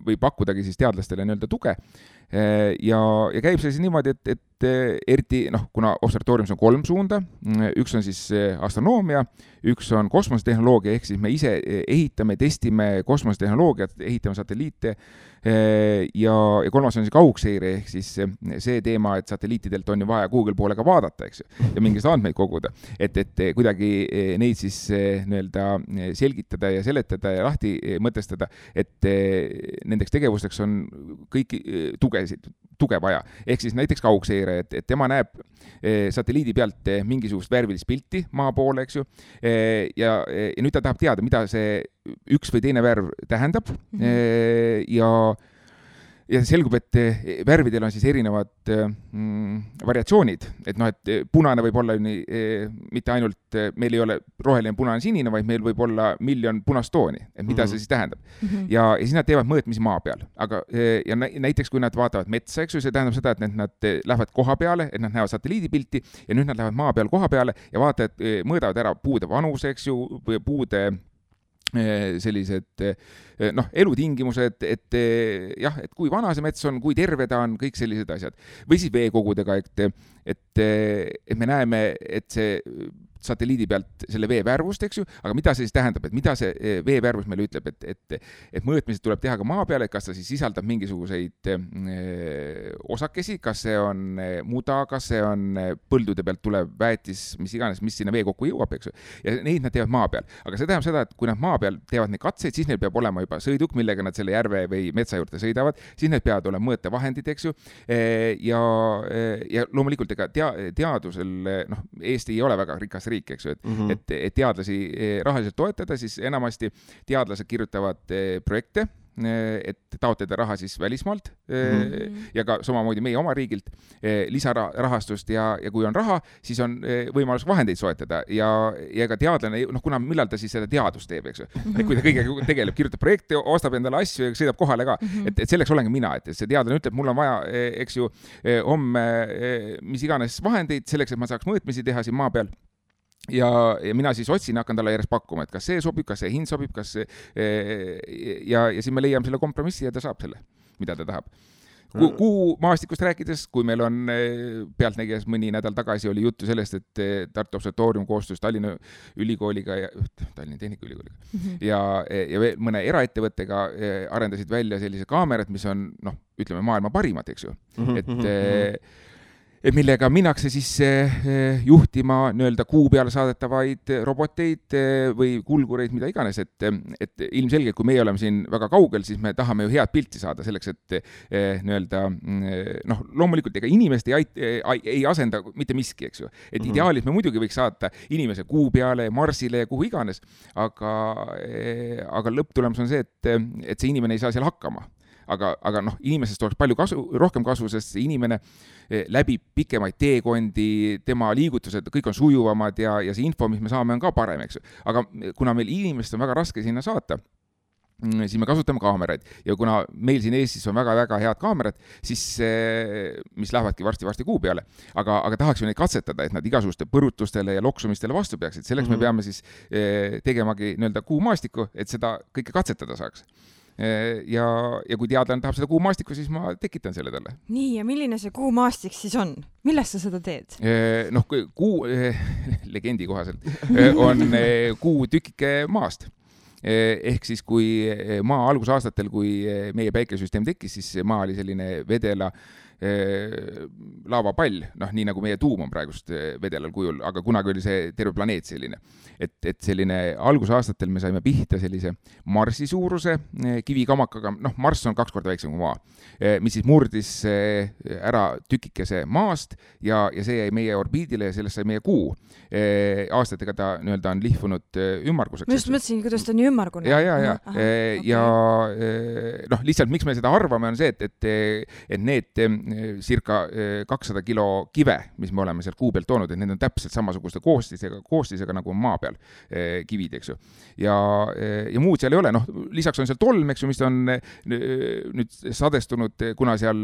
või pakkudagi siis teadlastele nii-öelda tuge. ja käib see siis niimoodi, et eriti, kuna observatooriumis on 3 suunda, üks on siis astronoomia, üks on kosmosetehnoloogia, ehk siis me ise ehitame, testime kosmosetehnoloogiat, ehitame satelliite, ja kolmas on siis kaugseire, ehk siis see teema, et satelliitidelt on ju vaja Google poole ka vaadata, eks ju, ja mingist andmeid koguda, et kuidagi neid siis selgitada ja seletada ja lahti mõtestada, et nendeks tegevusteks on kõiki tuge vaja. Ehk siis näiteks kaugseire, et tema näeb satelliidi pealt mingisugust värvilist pilti maa poole, eks ju, ja nüüd ta tahab teada, mida see üks või teine värv tähendab, ja selgub, et värvidel on siis erinevad variatsioonid, et punane võib olla mitte ainult, meil ei ole roheline, punane, sinine, vaid meil võib olla miljon punast tooni, et mida see siis tähendab. Ja siis nad teevad mõõtmisi maa peal, aga ja näiteks kui nad vaatavad metsa, eks ju, see tähendab seda, et nad lähevad koha peale, et nad näevad satelliidipilti ja nüüd nad lähevad maa peal koha peale ja vaatavad, mõõdavad ära puude vanuse, eks ju, või puude sellised elutingimused, et kui vana see mets on, kui terve ta on, kõik sellised asjad. Või siis veekogudega, et me näeme, et see satelliidi pealt selle vee värvust, eks ju, aga mida see siis tähendab, et mida see vee värvus meile ütleb, et mõõtmised tuleb teha ka maa peale, et kas ta siis sisaldab mingisuguseid osakesi, kas see on muda, kas see on põldude pealt tulev väetis, mis iganes, mis sinna vee kokku jõuab, eks ju, ja neid nad teevad maa peal. Aga see tähendab seda, et kui nad maa peal teevad neid katseid, siis neil peab olema juba sõiduk, millega nad selle järve või metsa juurde sõidavad, siis need peavad olema mõõtevahendid, eks ju, ja loomulikult ega teadusel, Eesti ei ole väga rikas riik, eks ju, et teadlasi rahaliselt toetada, siis enamasti teadlased kirjutavad projekte, et taotleda raha siis välismaalt ja ka samamoodi meie oma riigilt lisarahastust ja kui on raha, siis on võimalus vahendeid soetada ja ka teadlane, kuna millal ta siis seda teadust teeb, eks ju. Kui ta kõigega tegeleb, kirjutab projekte, ostab endale asju ja sõidab kohale ka, et selleks olengi mina, et see teadlane ütleb, mul on vaja, eks ju, homme mis iganes vahendeid selleks, et ma saaks mõõtmisi teha siin maa peal. Ja mina siis otsin, hakkan talle järjest pakkuma, et kas see sobib, kas see hind sobib, kas see, ja siis me leiame selle kompromissi ja ta saab selle, mida ta tahab. Kuu maastikust rääkides, kui meil on pealtnägijas mõni nädal tagasi oli juttu sellest, et Tartu Observatoorium koostus Tallinna Ülikooliga ja Tallinna Tehnikaülikooliga ja veel mõne eraettevõttega arendasid välja sellise kaamerad, mis on, ütleme, maailma parimad, eks ju. Et millega minnakse siis juhtima kuu peale saadetavaid roboteid või kulgureid, mida iganes, et ilmselgelt, kui meie oleme siin väga kaugel, siis me tahame ju head pilti saada selleks, et loomulikult ega inimest ei asenda mitte miski, eks ju. Et ideaalis me muidugi võiks saata inimese kuu peale, Marsile ja kuhu iganes, aga lõpptulemus on see, et see inimene ei saa seal hakkama. Aga inimesest oleks palju rohkem kasu, sest see inimene läbib pikemaid teekondi, tema liigutused, kõik on sujuvamad ja see info, mis me saame, on ka parem, eks ju. Aga kuna meil inimest on väga raske sinna saata, siis me kasutame kaameraid ja kuna meil siin Eestis on väga-väga head kaamerad, siis mis lähevadki varsti kuu peale, aga tahaksime neid katsetada, et nad igasuguste põrutustele ja loksumistele vastu peaksid. Selleks me peame siis tegemagi kuu maastiku, et seda kõike katsetada saaks. Ja kui teadlane tahab seda kuumaastikku, siis ma tekitan selle talle. Nii, ja milline see kuumaastik siis on? Millest sa seda teed? Kuu, legendi kohaselt, on kuu tükike maast. Ehk siis kui maa algusaastatel, kui meie päikesüsteem tekkis, siis maa oli selline vedela laavapall, nii nagu meie tuum on praegust vedelal kujul, aga kunagi oli see terve planeet selline. Et selline algusaastatel me saime pihta sellise Marsi suuruse kivikamakaga, Marss on 2 korda väiksem kui maa, mis siis murdis ära tükikese maast ja see jäi meie orbiidile ja sellest sai meie kuu. Aastatega ta on lihvunud ümmarguseks. Ma just mõtlesin, kuidas ta on ümmargune. Ja lihtsalt miks me seda arvame on see, et need circa 200 kilo kive, mis me oleme sealt kuu pealt toonud, et need on täpselt samasuguste koostisega nagu maa peal kivid, eks ju. Ja muud seal ei ole, lisaks on seal tolm, eks ju, mis on nüüd sadestunud, kuna seal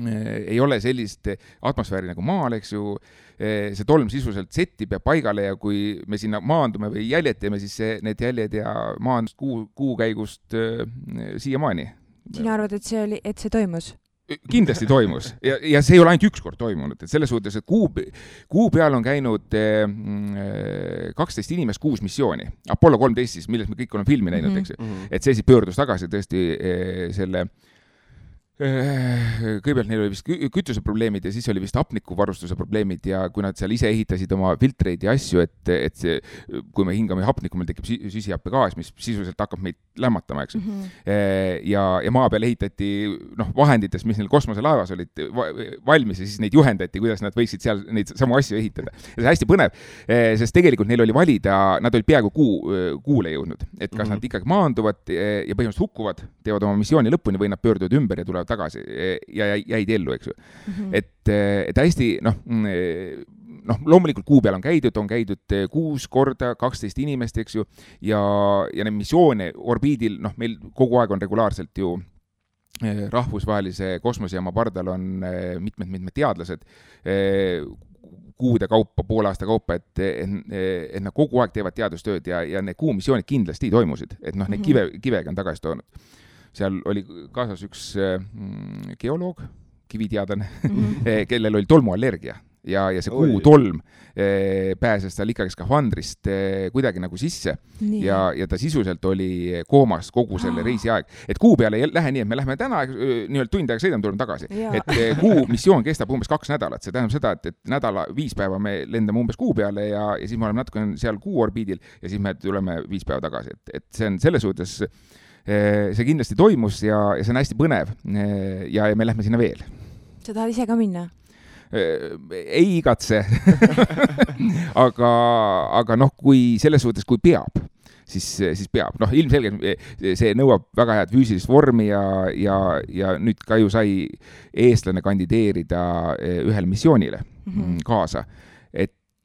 ei ole sellist atmosfääri nagu maal, eks ju, see tolm sisuliselt settib ja paigale ja kui me sinna maandume või jäljed teeme, siis need jäljed ja maandust kuu käigust siiamaani. Sina arvad, et see toimus? kindlasti toimus ja see ei ole ainult üks kord toimunud, et selles suhtes, et kuu peal on käinud 12 inimest 6 missiooni. Apollo 13 siis, milles me kõik oleme filmi näinud, eks ju. Et see siis pöördus tagasi tõesti selle kõigepealt neil oli vist kütuseprobleemid ja siis oli vist hapnikuvarustuse probleemid ja kui nad seal ise ehitasid oma filtreid ja asju, et see, kui me hingame hapnikku, meil tekib süsihappegaas, mis sisuliselt hakkab meid lämmatama, eks. Ja maa peal ehitati vahendites, mis neil kosmoselaevas olid valmis ja siis neid juhendati, kuidas nad võiksid seal neid samu asju ehitada. Ja see hästi põnev, sest tegelikult neil oli valida, nad olid peaaegu kuule jõudnud, et kas nad ikkagi maanduvad ja põhimõtteliselt hukkuvad, teevad oma missiooni lõpuni või nad pöörduvad ümber ja tulevad tagasi ja jäid ellu, eks ju. Et hästi, loomulikult kuu peal on käidud 6 korda 12 inimest, eks ju, ja need missioone orbiidil, meil kogu aeg on regulaarselt ju rahvusvahelise kosmosejaama pardal on mitmed teadlased kuude kaupa, poole aasta kaupa, et nad kogu aeg teevad teadustööd ja need kuumissioonid kindlasti toimusid, et neid kivega on tagasi toonud. Seal oli kaasas üks geoloog, kiviteadlane, kellel oli tolmuallergia ja see kuutolm pääses tal ikkagi skafandrist kuidagi nagu sisse ja ta sisuliselt oli koomas kogu selle reisi aeg. Et kuu peale ei lähe nii, et me lähme täna nii-öelda tund aega sõidame, tuleme tagasi. Et kuu missioon kestab umbes 2 nädalat. See tähendab seda, et nädala 5 päeva me lendame umbes kuu peale ja siis me oleme natuke seal kuu orbiidil ja siis me tuleme 5 päeva tagasi. Et see on selles suhtes see kindlasti toimus ja see on hästi põnev ja me lähme sinna veel. Sa tahad ise ka minna? Ei igatse. aga kui selles suhtes, kui peab, siis peab. Ilmselgelt see nõuab väga head füüsilist vormi ja nüüd ka ju sai eestlane kandideerida ühele missioonile kaasa.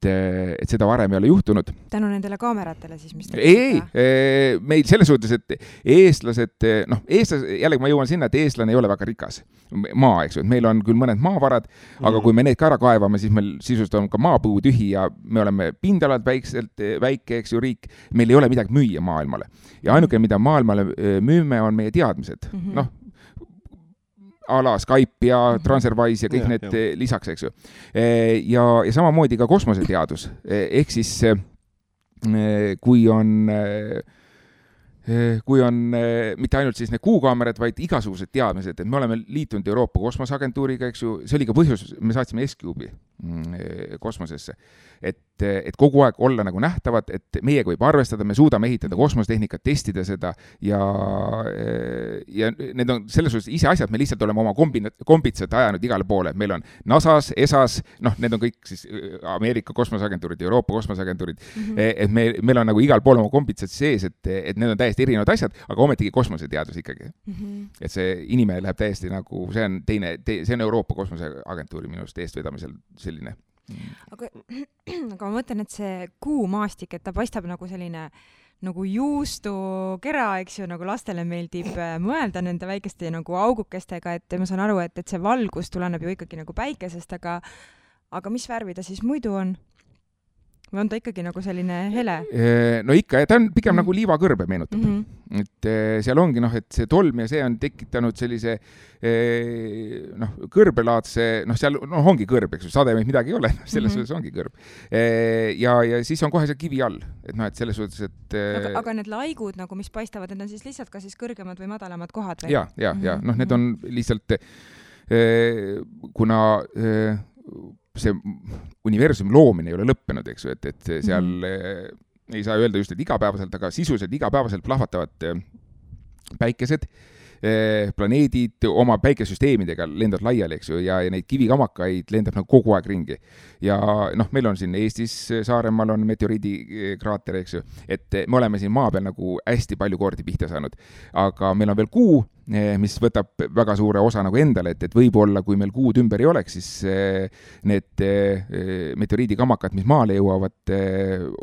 Et seda varem ei ole juhtunud. Tänu nendele kaameratele siis, mis... Ei, meil selles suhtes, et eestlased, jällegi ma jõuan sinna, et eestlane ei ole väga rikas maa, eks ju. Meil on küll mõned maavarad, aga kui me need ka ära kaevame, siis meil sisust on ka maapõu tühi ja me oleme pindalad väike, eks ju, riik. Meil ei ole midagi müüa maailmale. Ja ainuke, mida maailmale müüme, on meie teadmised. Ala Skype ja TransferWise ja kõik need lisaks, eks ju. Ja samamoodi ka kosmoseteadus. Ehk siis, kui on mitte ainult siis need kuukaamerad, vaid igasugused teadmised, et me oleme liitunud Euroopa kosmoseagentuuriga, eks ju, see oli ka põhjus, me saatsime S-Cube'i kosmosesse, et kogu aeg olla nagu nähtavad, et meiega võib arvestada, me suudame ehitada kosmosetehnikat, testida seda ja need on selles suhtes ise asjad, me lihtsalt oleme oma kombitsad ajanud igale poole, meil on NASA's, ESA's, need on kõik siis Ameerika kosmoseagentuurid, Euroopa kosmoseagentuurid, et meil on nagu igal pool oma kombitsad sees, et need on täiesti erinevad asjad, aga ometigi kosmoseteadus ikkagi. Et see inimene läheb täiesti nagu, see on Euroopa kosmoseagentuuri minust eestvedamisel selline. Aga ma mõtlen, et see kuumaastik, et ta paistab nagu selline nagu juustukera, eks ju, nagu lastele meeldib mõelda nende väikeste nagu augukestega, et ma saan aru, et see valgus tuleneb ju ikkagi nagu päikesest, aga mis värvi ta siis muidu on? Või on ta ikkagi nagu selline hele? No ikka, ta on pigem nagu liivakõrbe meenutab. Et seal ongi, et see tolm ja see on tekitanud sellise kõrbelaadse, seal ongi kõrb, eks ju, sademeid midagi ei ole, selles suhtes ongi kõrb. Ja siis on kohe see kivi all, et selles suhtes, et... Aga need laigud, nagu mis paistavad, need on siis lihtsalt ka siis kõrgemad või madalamad kohad? Ja, need on lihtsalt, kuna see universumi loomine ei ole lõppenud, eks ju, et seal ei saa öelda just, et igapäevaselt, aga sisuliselt igapäevaselt plahvatavad päikesed, planeedid oma päikesüsteemidega lendavad laiali, eks ju, ja neid kivikamakaid lendab nagu kogu aeg ringi. Ja meil on siin Eestis Saaremaal on meteoriidikraater, eks ju, et me oleme siin maa peal nagu hästi palju kordi pihta saanud. Aga meil on veel kuu, mis võtab väga suure osa nagu endale, et võib-olla, kui meil kuud ümber ei oleks, siis need meteoriidikamakad, mis maale jõuavad,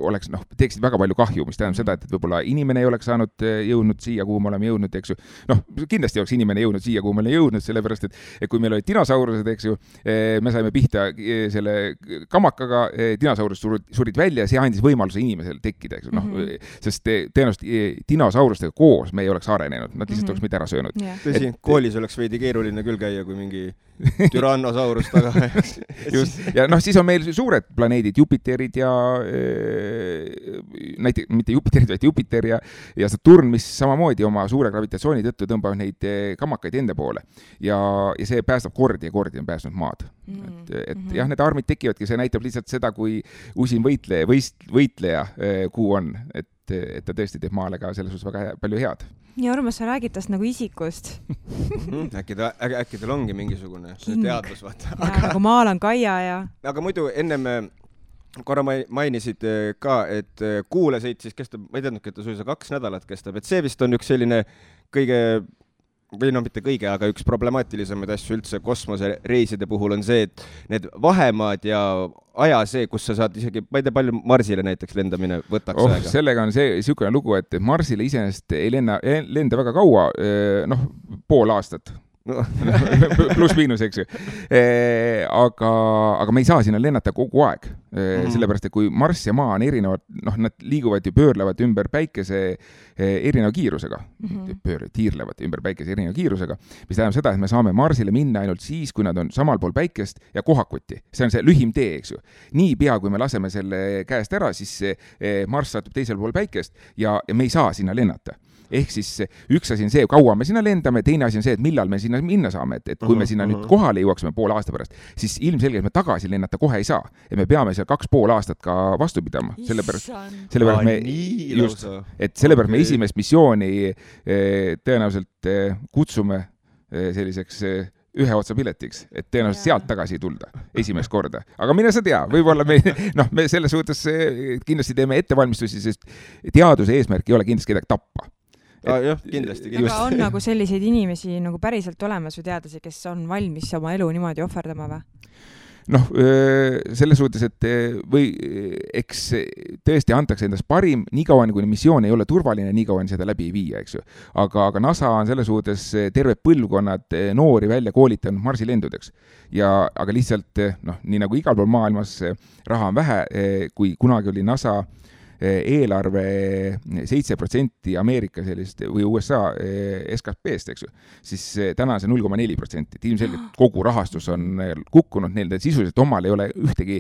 oleks, teeksid väga palju kahju, mis tähendab seda, et võib-olla inimene ei oleks saanud jõudnud siia, kuhu me oleme jõudnud, eks ju. Kindlasti oleks inimene jõudnud siia, kuhu me oleme jõudnud, sellepärast, et kui meil olid dinosaurused, eks ju, me saime pihta selle kamakaga, dinosaurused surid välja ja see andis võimaluse inimesel tekkida, eks ju. Sest tõenäoliselt dinosaurustega koos me ei oleks arenenud, nad lihtsalt oleks mitte ära söönud. olnud. Tõsi, koolis oleks veidi keeruline küll käia, kui mingi Tyrannosaurus taga. Just. Ja noh, siis on meil suured planeedid, Jupiterid ja näiteks, mitte Jupiterid, vaid Jupiter ja Saturn, mis samamoodi oma suure gravitatsiooni tõttu tõmbavad neid kammakaid ende poole. Ja see päästab kordi on pääsnud maad. Et jah, need armid tekivadki, see näitab lihtsalt seda, kui usin võitleja kuu on, et ta tõesti teeb maale ka selles suhtes väga palju head. Ja Urmas, sa räägid tast nagu isikust. Äkki teil ongi mingisugune teadlus, vaata. Nagu maal on Kaia ja... Aga muidu ennem korra mainisid ka, et kuule sõit siis kestab, ma ei teadnudki, et ta suisa 2 nädalat kestab, et see vist on üks selline kõige, või no mitte kõige, aga üks problemaatilisemaid asju üldse kosmosereiside puhul on see, et need vahemaad ja aja see, kus sa saad isegi, ma ei tea, palju Marsile näiteks lendamine võtaks aega. Sellega on see niisugune lugu, et Marsile iseenesest ei lenda väga kaua, pool aastat. Pluss miinus, eks ju. Aga me ei saa sinna lennata kogu aeg. Sellepärast, et kui Mars ja Maa on erinevad, nad liiguvad ja pöörlevad ümber päikese erineva kiirusega. Tiirlevad ümber päikese erineva kiirusega, mis tähendab seda, et me saame Marsile minna ainult siis, kui nad on samal pool päikest ja kohakuti. See on see lühim tee, eks ju. Nii pea, kui me laseme selle käest ära, siis Mars satub teisel pool päikest ja me ei saa sinna lennata. Ehk siis üks asi on see, kaua me sinna lendame, teine asi on see, et millal me sinna minna saame, et kui me sinna nüüd kohale jõuaksime pool aasta pärast, siis ilmselgelt me tagasi lennata kohe ei saa. Ja me peame seal 2,5 aastat ka vastu pidama. Sellepärast me esimest missiooni tõenäoliselt kutsume selliseks ühe otsa piletiks, et tõenäoliselt sealt tagasi ei tulda esimest korda. Aga mine sa tea, võib-olla me selles suhtes kindlasti teeme ettevalmistusi, sest teaduse eesmärk ei ole kindlasti kedagi tappa. Jah, kindlasti. Aga on nagu selliseid inimesi nagu päriselt olemas või teadlasi, kes on valmis oma elu niimoodi ohverdama või? Selles suhtes, et või eks tõesti antakse endast parim, nii kauan kui missioon ei ole turvaline, nii kauan seda läbi ei viia, eks ju. Aga NASA on selles suhtes terve põlvkonnad noori välja koolitanud Marsilendudeks. Aga lihtsalt, nii nagu igal pool maailmas raha on vähe, kui kunagi oli NASA eelarve 7% Ameerika sellist või USA SKP-st, eks ju, siis täna on see 0,4%. Ilmselgelt kogu rahastus on kukkunud, neil sisuliselt omal ei ole ühtegi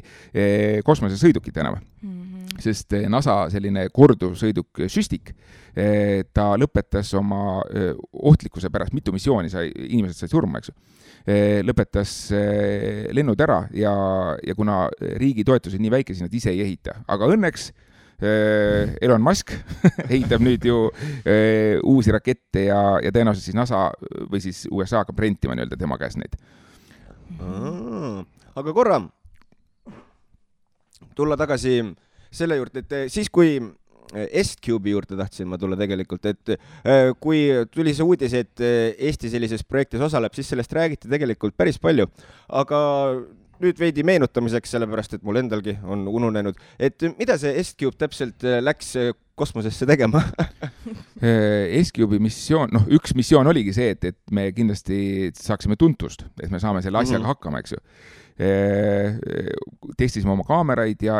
kosmosesõidukit enam. Sest NASA selline korduvsõiduk Süstik, ta lõpetas oma ohtlikkuse pärast, mitu missiooni inimesed said surma, eks ju. Lõpetas lennud ära ja kuna riigi toetused nii väike, siis nad ise ei ehita. Aga õnneks Elon Musk ehitab nüüd ju uusi rakette ja tõenäoliselt siis NASA või siis USA hakkab rentima nii-öelda tema käes neid. Aga korra tulla tagasi selle juurde, et siis kui S-Cube'i juurde tahtsin ma tulla tegelikult, et kui tuli see uudis, et Eesti sellises projektis osaleb, siis sellest räägiti tegelikult päris palju, aga nüüd veidi meenutamiseks, sellepärast, et mul endalgi on ununenud, et mida see S-Cube täpselt läks kosmosesse tegema? S-Cube'i missioon, üks missioon oligi see, et me kindlasti saaksime tuntust, et me saame selle asjaga hakkama, eks ju. Testisime oma kaameraid ja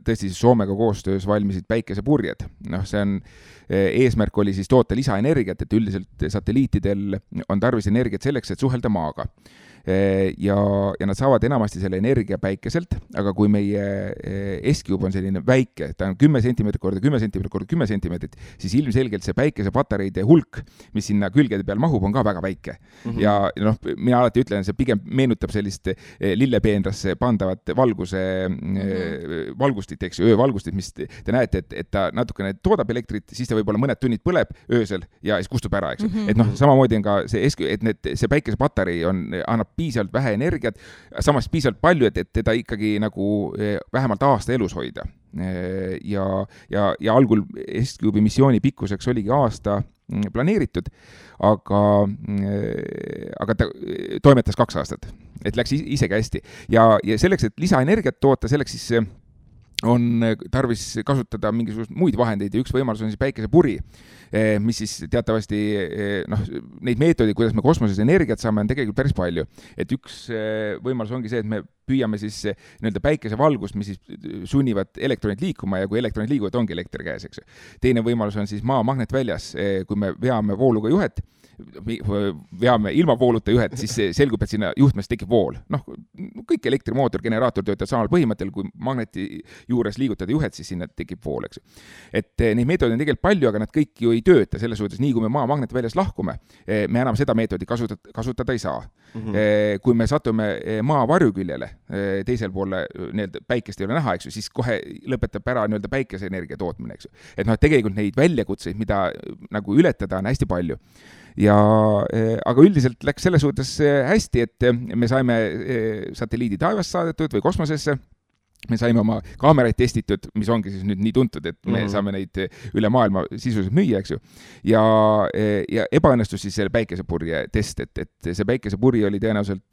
tõesti Soomega koostöös valmisid päikesepurjed. See on, eesmärk oli siis toota lisaenergiat, et üldiselt satelliitidel on tarvis energiat selleks, et suhelda maaga. Ja nad saavad enamasti selle energia päikeselt, aga kui meie S-Cube on selline väike, ta on 10 cm korda 10 cm korda 10 cm, siis ilmselgelt see päikesepatareide hulk, mis sinna külgede peal mahub, on ka väga väike. Ja mina alati ütlen, see pigem meenutab sellist lillepeenrasse pandavat valgustit, eks ju, öövalgustit, mis te näete, et ta natukene toodab elektrit, siis ta võib-olla mõned tunnid põleb öösel ja siis kustub ära, eks ju. Et samamoodi on ka see S-Cube, et see päikesepatarei annab piisavalt vähe energiat, samas piisavalt palju, et teda ikkagi nagu vähemalt aasta elus hoida. Ja algul S-Cube'i missiooni pikkuseks oligi aasta planeeritud, aga ta toimetas 2 aastat, et läks isegi hästi. Ja selleks, et lisaenergiat toota, selleks siis on tarvis kasutada mingisugust muid vahendeid ja üks võimalus on siis päikesepuri, mis siis teatavasti neid meetodid, kuidas me kosmoses energiat saame, on tegelikult päris palju. Et üks võimalus ongi see, et me püüame siis nii-öelda päikesevalgust, mis siis sunnivad elektronid liikuma ja kui elektronid liiguvad, ongi elekter käes, eks. Teine võimalus on siis maa magnetväljas, kui me veame vooluga juhet, veame ilmavooluta juhet, siis selgub, et sinna juhtmes tekib vool. Noh, kõik elektrimootor, generaator töötab samal põhimõttel, kui magneti juures liigutada juhet, siis sinna tekib vool, eks. Et neid meetodeid on tegelikult palju, aga nad kõik ju ei tööta, selles suhtes, nii kui me maa magnetväljast lahkume, me enam seda meetodi kasutada ei saa. Kui me satume maa varjuküljele, teisel poole päikest ei ole näha, eks ju, siis kohe lõpetab ära päikeseenergia tootmine, eks ju. Et tegelikult neid väljakutseid, mida nagu ületada, on hästi palju. Aga üldiselt läks selles suhtes hästi, et me saime satelliidi taevast saadetud või kosmosesse, me saime oma kaameraid testitud, mis ongi siis nüüd nii tuntud, et me saame neid üle maailma sisuliselt müüa, eks ju. Ja ebaõnnestus siis selle päikesepurje test, et see päikesepurje oli tõenäoliselt,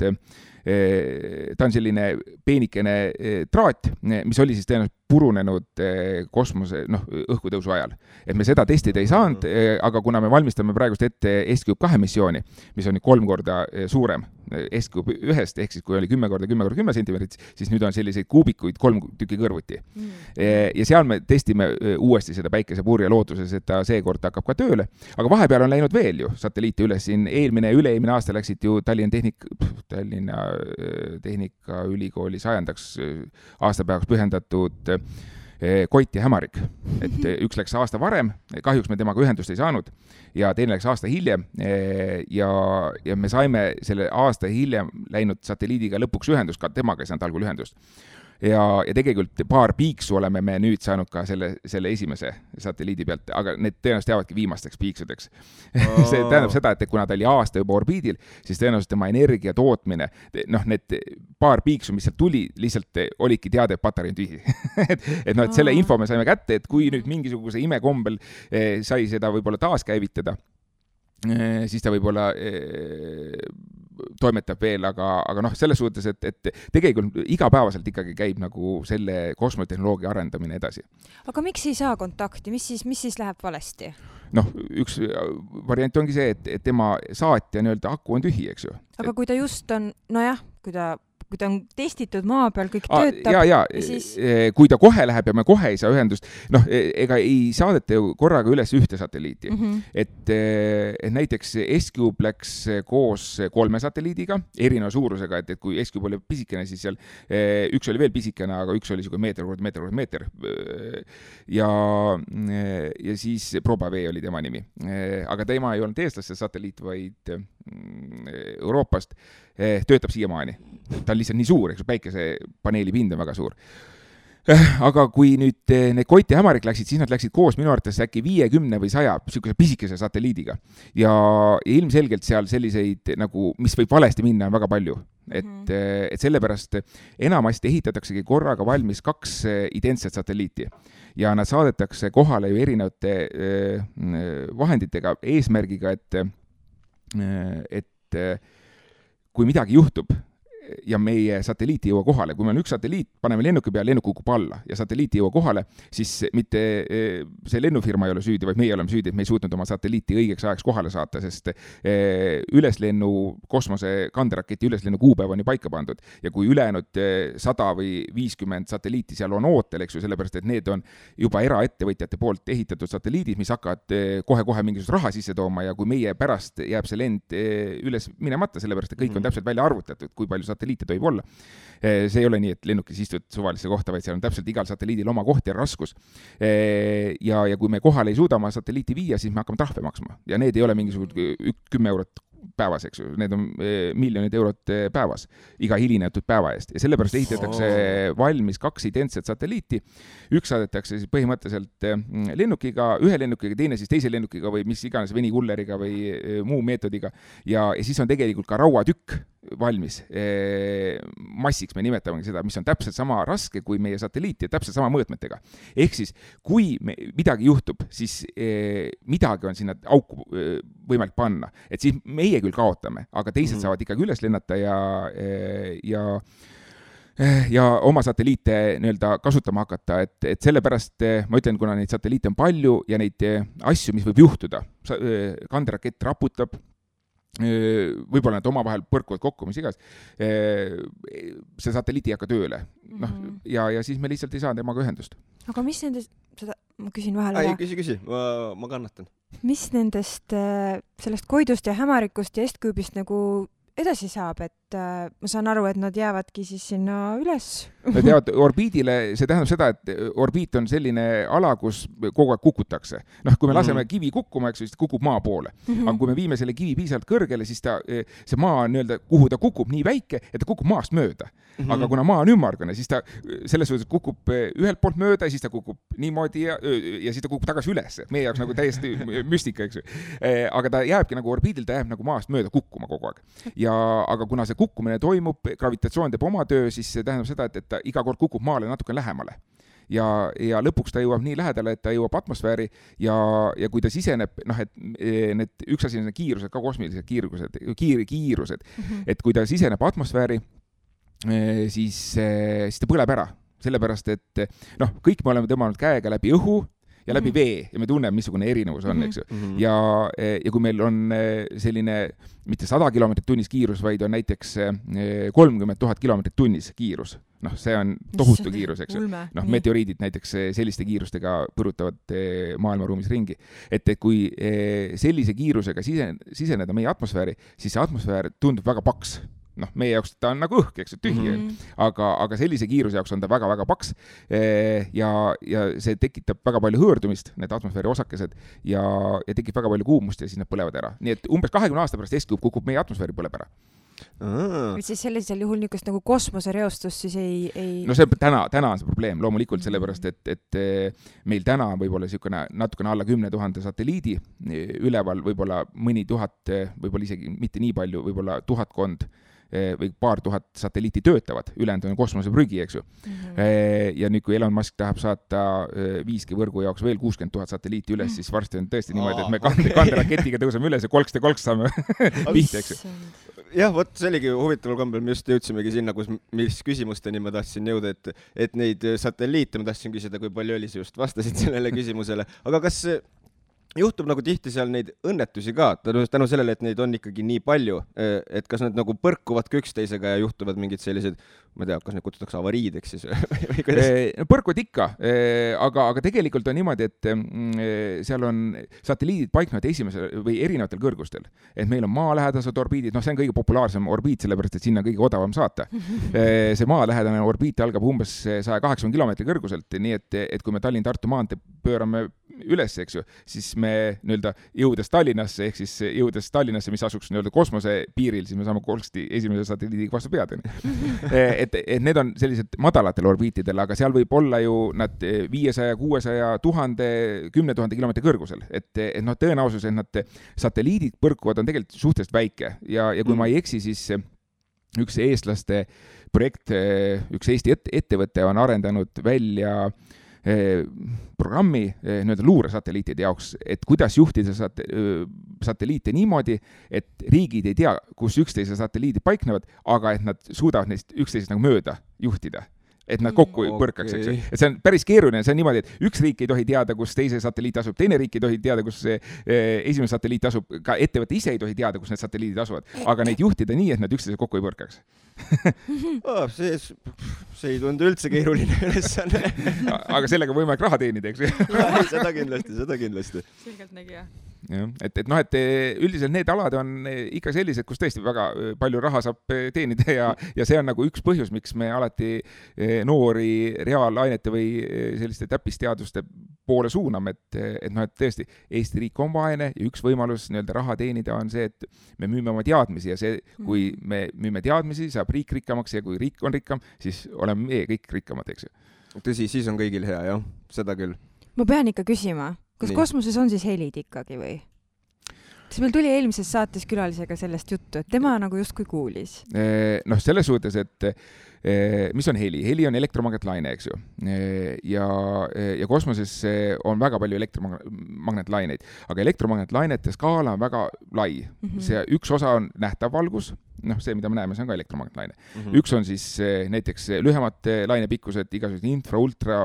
ta on selline peenikene traat, mis oli siis tõenäoliselt purunenud kosmose, õhkutõusu ajal. Et me seda testida ei saanud, aga kuna me valmistame praegust ette S-Cube 2 missiooni, mis on 3 korda suurem S-Cube 1-st, ehk siis kui oli 10 korda 10 korda 10 sentimeetrit, siis nüüd on selliseid kuubikuid 3 tükki kõrvuti. Ja seal me testime uuesti seda päikesepurje lootuses, et ta seekord hakkab ka tööle. Aga vahepeal on läinud veel ju satelliite üles. Siin üle-eelmine aasta läksid ju Tallinna Tehnikaülikooli 100. aastapäevaks pühendatud Koit ja Hämarik. Et üks läks aasta varem, kahjuks me temaga ühendust ei saanud ja teine läks aasta hiljem ja me saime selle aasta hiljem läinud satelliidiga lõpuks ühendust, ka temaga ei saanud algul ühendust. Ja tegelikult paar piiksu oleme me nüüd saanud ka selle esimese satelliidi pealt, aga need tõenäoliselt jäävadki viimasteks piiksudeks. See tähendab seda, et kuna ta oli aasta juba orbiidil, siis tõenäoliselt tema energia tootmine, need paar piiksu, mis sealt tuli, lihtsalt olidki teada, et patarei on tühi. et selle info me saime kätte, et kui nüüd mingisuguse imekombel sai seda võib-olla taaskäivitada, siis ta võib-olla toimetab veel, aga selles suhtes, et tegelikult igapäevaselt ikkagi käib nagu selle kosmotehnoloogia arendamine edasi. Aga miks ei saa kontakti? Mis siis läheb valesti? Üks variant ongi see, et tema saatja aku on tühi, eks ju. Aga kui ta just on, kui ta on testitud maa peal, kõik töötab. Siis... kui ta kohe läheb ja me kohe ei saa ühendust, ega ei saadeta ju korraga üles ühte satelliiti. Et näiteks S-Cube läks koos 3 satelliidiga, erineva suurusega, et kui S-Cube oli pisikene, siis seal üks oli veel pisikene, aga üks oli meeter. Ja siis Probavee oli tema nimi. Aga tema ei olnud eestlaste satelliit, vaid Euroopast, töötab siiamaani. Ta on lihtsalt nii suur, eks päikesepaneeli pind on väga suur. Aga kui nüüd need Koit ja Hämarik läksid, siis nad läksid koos minu arvates äkki 50 või 100 sihukese pisikese satelliidiga. Ja ilmselgelt seal selliseid, mis võib valesti minna, on väga palju. Et sellepärast enamasti ehitataksegi korraga valmis 2 identset satelliiti. Ja nad saadetakse kohale ju erinevate vahenditega, eesmärgiga, et kui midagi juhtub ja meie satelliit ei jõua kohale, kui meil on üks satelliit, paneme lennuki peale, lennuk kukub alla ja satelliit ei jõua kohale, siis mitte see lennufirma ei ole süüdi, vaid meie oleme süüdi, et me ei suutnud oma satelliiti õigeks ajaks kohale saata, sest üleslennu kosmose kanderaketi üleslennu kuupäev on ju paika pandud ja kui ülejäänud 100 või 50 satelliiti seal on ootel, eks ju, sellepärast, et need on juba eraettevõtjate poolt ehitatud satelliidid, mis hakkavad kohe mingisugust raha sisse tooma ja kui meie pärast jääb see lend üles minemata, sellepärast, et kõik on täpselt välja arvutatud, kui palju satelliite tohib olla. See ei ole nii, et lennukis istud suvalisse kohta, vaid seal on täpselt igal satelliidil oma koht ja raskus. Ja kui me kohale ei suuda oma satelliiti viia, siis me hakkame trahve maksma. Ja need ei ole mingisugused 10 eurot päevas, eks ju. Need on miljonid eurot päevas, iga hilinetud päeva eest. Ja sellepärast ehitatakse valmis 2 identset satelliiti. Üks saadetakse siis põhimõtteliselt lennukiga, ühe lennukiga, teine siis teise lennukiga või mis iganes venikulleriga või muu meetodiga. Ja siis on tegelikult ka rauatükk valmis. Massiks me nimetamegi seda, mis on täpselt sama raske kui meie satelliit ja täpselt sama mõõtmetega. Ehk siis, kui midagi juhtub, siis midagi on sinna auku võimalik panna. Et siis meie küll kaotame, aga teised saavad ikkagi üles lennata ja oma satelliite kasutama hakata, et sellepärast ma ütlen, kuna neid satelliite on palju ja neid asju, mis võib juhtuda, kanderakett raputab, võib-olla nad omavahel põrkuvad kokku, mis igas, see satelliit ei hakka tööle. Ja siis me lihtsalt ei saa temaga ühendust. Aga mis nende ma küsin vahel ei, ära. Küsi, ma kannatan. Mis nendest sellest Koidust ja Hämarikust ja Estküübist nagu edasi saab, et ma saan aru, et nad jäävadki siis sinna üles? Nad jäävad orbiidile, see tähendab seda, et orbiit on selline ala, kus kogu aeg kukutakse. Noh, kui me laseme kivi kukkuma, eks, siis ta kukub maa poole. Aga kui me viime selle kivi piisavalt kõrgele, siis see maa nii-öelda, kuhu ta kukub nii väike, et ta kukub maast mööda. Aga kuna maa on ümmargune, siis ta selles suhtes kukub ühelt poolt mööda, siis ta kukub niimoodi ja siis ta kukub tagasi üles. Meie jaoks nagu täiesti müstika, eks. Aga ta jääbki nagu orbiidil, ta jääb nagu maast mööda kukkuma kogu aeg. Aga kuna see kukkumine toimub, gravitatsioon teeb oma töö, siis see tähendab seda, et ta iga kord kukub maale natuke lähemale. Ja lõpuks ta jõuab nii lähedale, et ta jõuab atmosfääri ja kui ta siseneb, noh, et need üks asi on kiirused, ka kosmilised kiirused, et kui ta siseneb atmosfääri, siis ta põleb ära. Sellepärast, et noh, kõik me oleme tõmmanud käega läbi õhu ja läbi vee ja me tunneme, missugune erinevus on, eks ju. Ja kui meil on selline mitte 100 kilomeetrit tunnis kiirus, vaid on näiteks 30 000 kilomeetrit tunnis kiirus. Noh, see on tohutu kiirus, eks ju. Noh, meteoriidid näiteks selliste kiirustega põrutavad maailmaruumis ringi. Et kui sellise kiirusega siseneda meie atmosfääri, siis see atmosfäär tundub väga paks. Noh, meie jaoks ta on nagu õhk, eks, tühi, aga sellise kiiruse jaoks on ta väga-väga paks ja see tekitab väga palju hõõrdumist, need atmosfääri osakesed ja tekib väga palju kuumust ja siis nad põlevad ära. Nii et umbes 20 aasta pärast Estküüb kukub meie atmosfääri põleb ära. Siis sellisel juhul niisugust nagu kosmosereostus siis ei... No see täna on see probleem, loomulikult sellepärast, et meil täna võib-olla natukene alla 10 000 satelliidi üleval, võib-olla mõni 1000, võib-olla isegi mitte nii palju, võib-olla 1000 või paar tuhat satelliiti töötavad, ülejäänud on kosmoseprügi, eks ju. Ja nüüd, kui Elon Musk tahab saata 5G võrgu jaoks veel 60 000 satelliiti üles, siis varsti on tõesti niimoodi, et me kanderaketiga tõuseme üles ja kolks saame pihta, eks ju. Jah, vot see oligi huvitaval kombel, me just jõudsimegi sinna, mis küsimusteni ma tahtsin jõuda, et neid satelliite ma tahtsin küsida, kui palju oli, just vastasid sellele küsimusele. Aga kas juhtub nagu tihti seal neid õnnetusi ka, tänu sellele, et neid on ikkagi nii palju, et kas nad nagu põrkuvad üksteisega ja juhtuvad mingid sellised, ma ei tea, kas neid kutsutakse avariideks siis või kuidas? Põrkuvad ikka, aga tegelikult on niimoodi, et seal on satelliidid paiknevad esimesel või erinevatel kõrgustel. Et meil on maalähedased orbiidid, see on kõige populaarsem orbiit, sellepärast, et sinna kõige odavam saata. See maalähedane orbiit algab umbes 180 kilomeetri kõrguselt, nii et kui me Tallinn-Tartu maantee pöörame üles, eks ju, siis me nii-öelda jõudes Tallinnasse, ehk siis jõudes Tallinnasse, mis asuks nii-öelda kosmose piiril, siis me saame kolmsti esimese satelliidiga vastu pead. Et need on sellised madalatel orbiitidel, aga seal võib olla ju nad 500, 600, 1000, 10 000 kilomeetri kõrgusel. Et tõenäosus, et nad satelliidid põrkuvad, on tegelikult suhteliselt väike. Ja kui ma ei eksi, siis üks eestlaste projekt, üks Eesti ettevõte on arendanud välja programmi nii-öelda luuresatelliitide jaoks, et kuidas juhtida satelliite niimoodi, et riigid ei tea, kus üksteise satelliidid paiknevad, aga et nad suudavad neist üksteisest nagu mööda juhtida. Et nad kokku põrkaks, eks ju. Et see on päris keeruline, see on niimoodi, et üks riik ei tohi teada, kus teise satelliit asub, teine riik ei tohi teada, kus esimene satelliit asub, ka ettevõte ise ei tohi teada, kus need satelliidid asuvad, aga neid juhtida nii, et nad üksteise kokku ei põrkaks. See ei tundu üldse keeruline ülesanne. Aga sellega võime raha teenida, eks ju. Seda kindlasti. Selgelt nägi, jah. Et üldiselt need alad on ikka sellised, kus tõesti väga palju raha saab teenida ja see on nagu üks põhjus, miks me alati noori reaalainete või selliste täppisteaduste poole suuname, et tõesti Eesti riik on vaene ja üks võimalus nii-öelda raha teenida on see, et me müüme oma teadmisi ja see, kui me müüme teadmisi, saab riik rikkamaks ja kui riik on rikkam, siis oleme meie kõik rikkamad, eks ju. Tõsi, siis on kõigil hea, jah, seda küll. Ma pean ikka küsima, kas kosmoses on siis helid ikkagi või? Siis meil tuli eelmises saates külalisega sellest juttu, et tema nagu justkui kuulis. Selles suhtes, et mis on heli? Heli on elektromagnetlaine, eks ju. Ja kosmoses on väga palju elektromagnetlaineid, aga elektromagnetlainete skaala on väga lai. See üks osa on nähtav valgus, see, mida me näeme, see on ka elektromagnetlaine. Üks on siis näiteks lühemad lainepikkused, igasugused infra, ultra,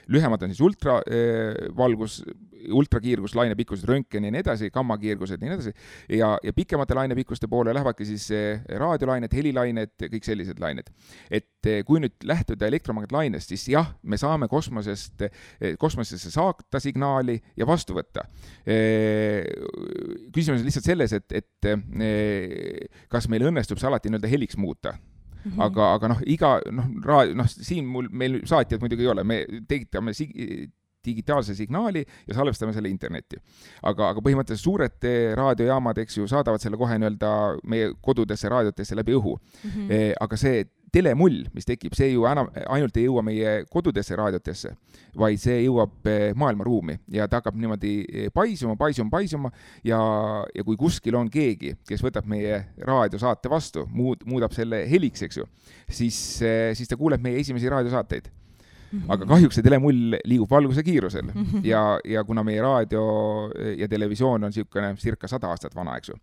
lühemad on siis ultravalgus, ultrakiirgus, lainepikkused, röntgen ja nii edasi, gammakiirgused ja nii edasi. Ja pikemate lainepikkuste poole lähevadki siis raadiolained, helilained, kõik sellised lained. Et kui nüüd lähtuda elektromagnetlainest, siis jah, me saame kosmosesse saata signaali ja vastu võtta. Küsimus on lihtsalt selles, et kas meil õnnestub see alati nii-öelda heliks muuta. Aga siin meil saatjad muidugi ei ole, me tegitame digitaalse signaali ja salvestame selle internetti. Aga põhimõtteliselt suured raadiojaamad, eks ju, saadavad selle kohe nii-öelda meie kodudesse raadiotesse läbi õhu. Aga see telemull, mis tekib, see ju ainult ei jõua meie kodudesse raadiotesse, vaid see jõuab maailmaruumi ja ta hakkab niimoodi paisuma ja kui kuskil on keegi, kes võtab meie raadiosaate vastu, muudab selle heliks, eks ju, siis ta kuuleb meie esimesi raadiosaateid. Aga kahjuks see telemull liigub valguse kiirusel ja kuna meie raadio ja televisioon on circa 100 aastat vana, eks ju,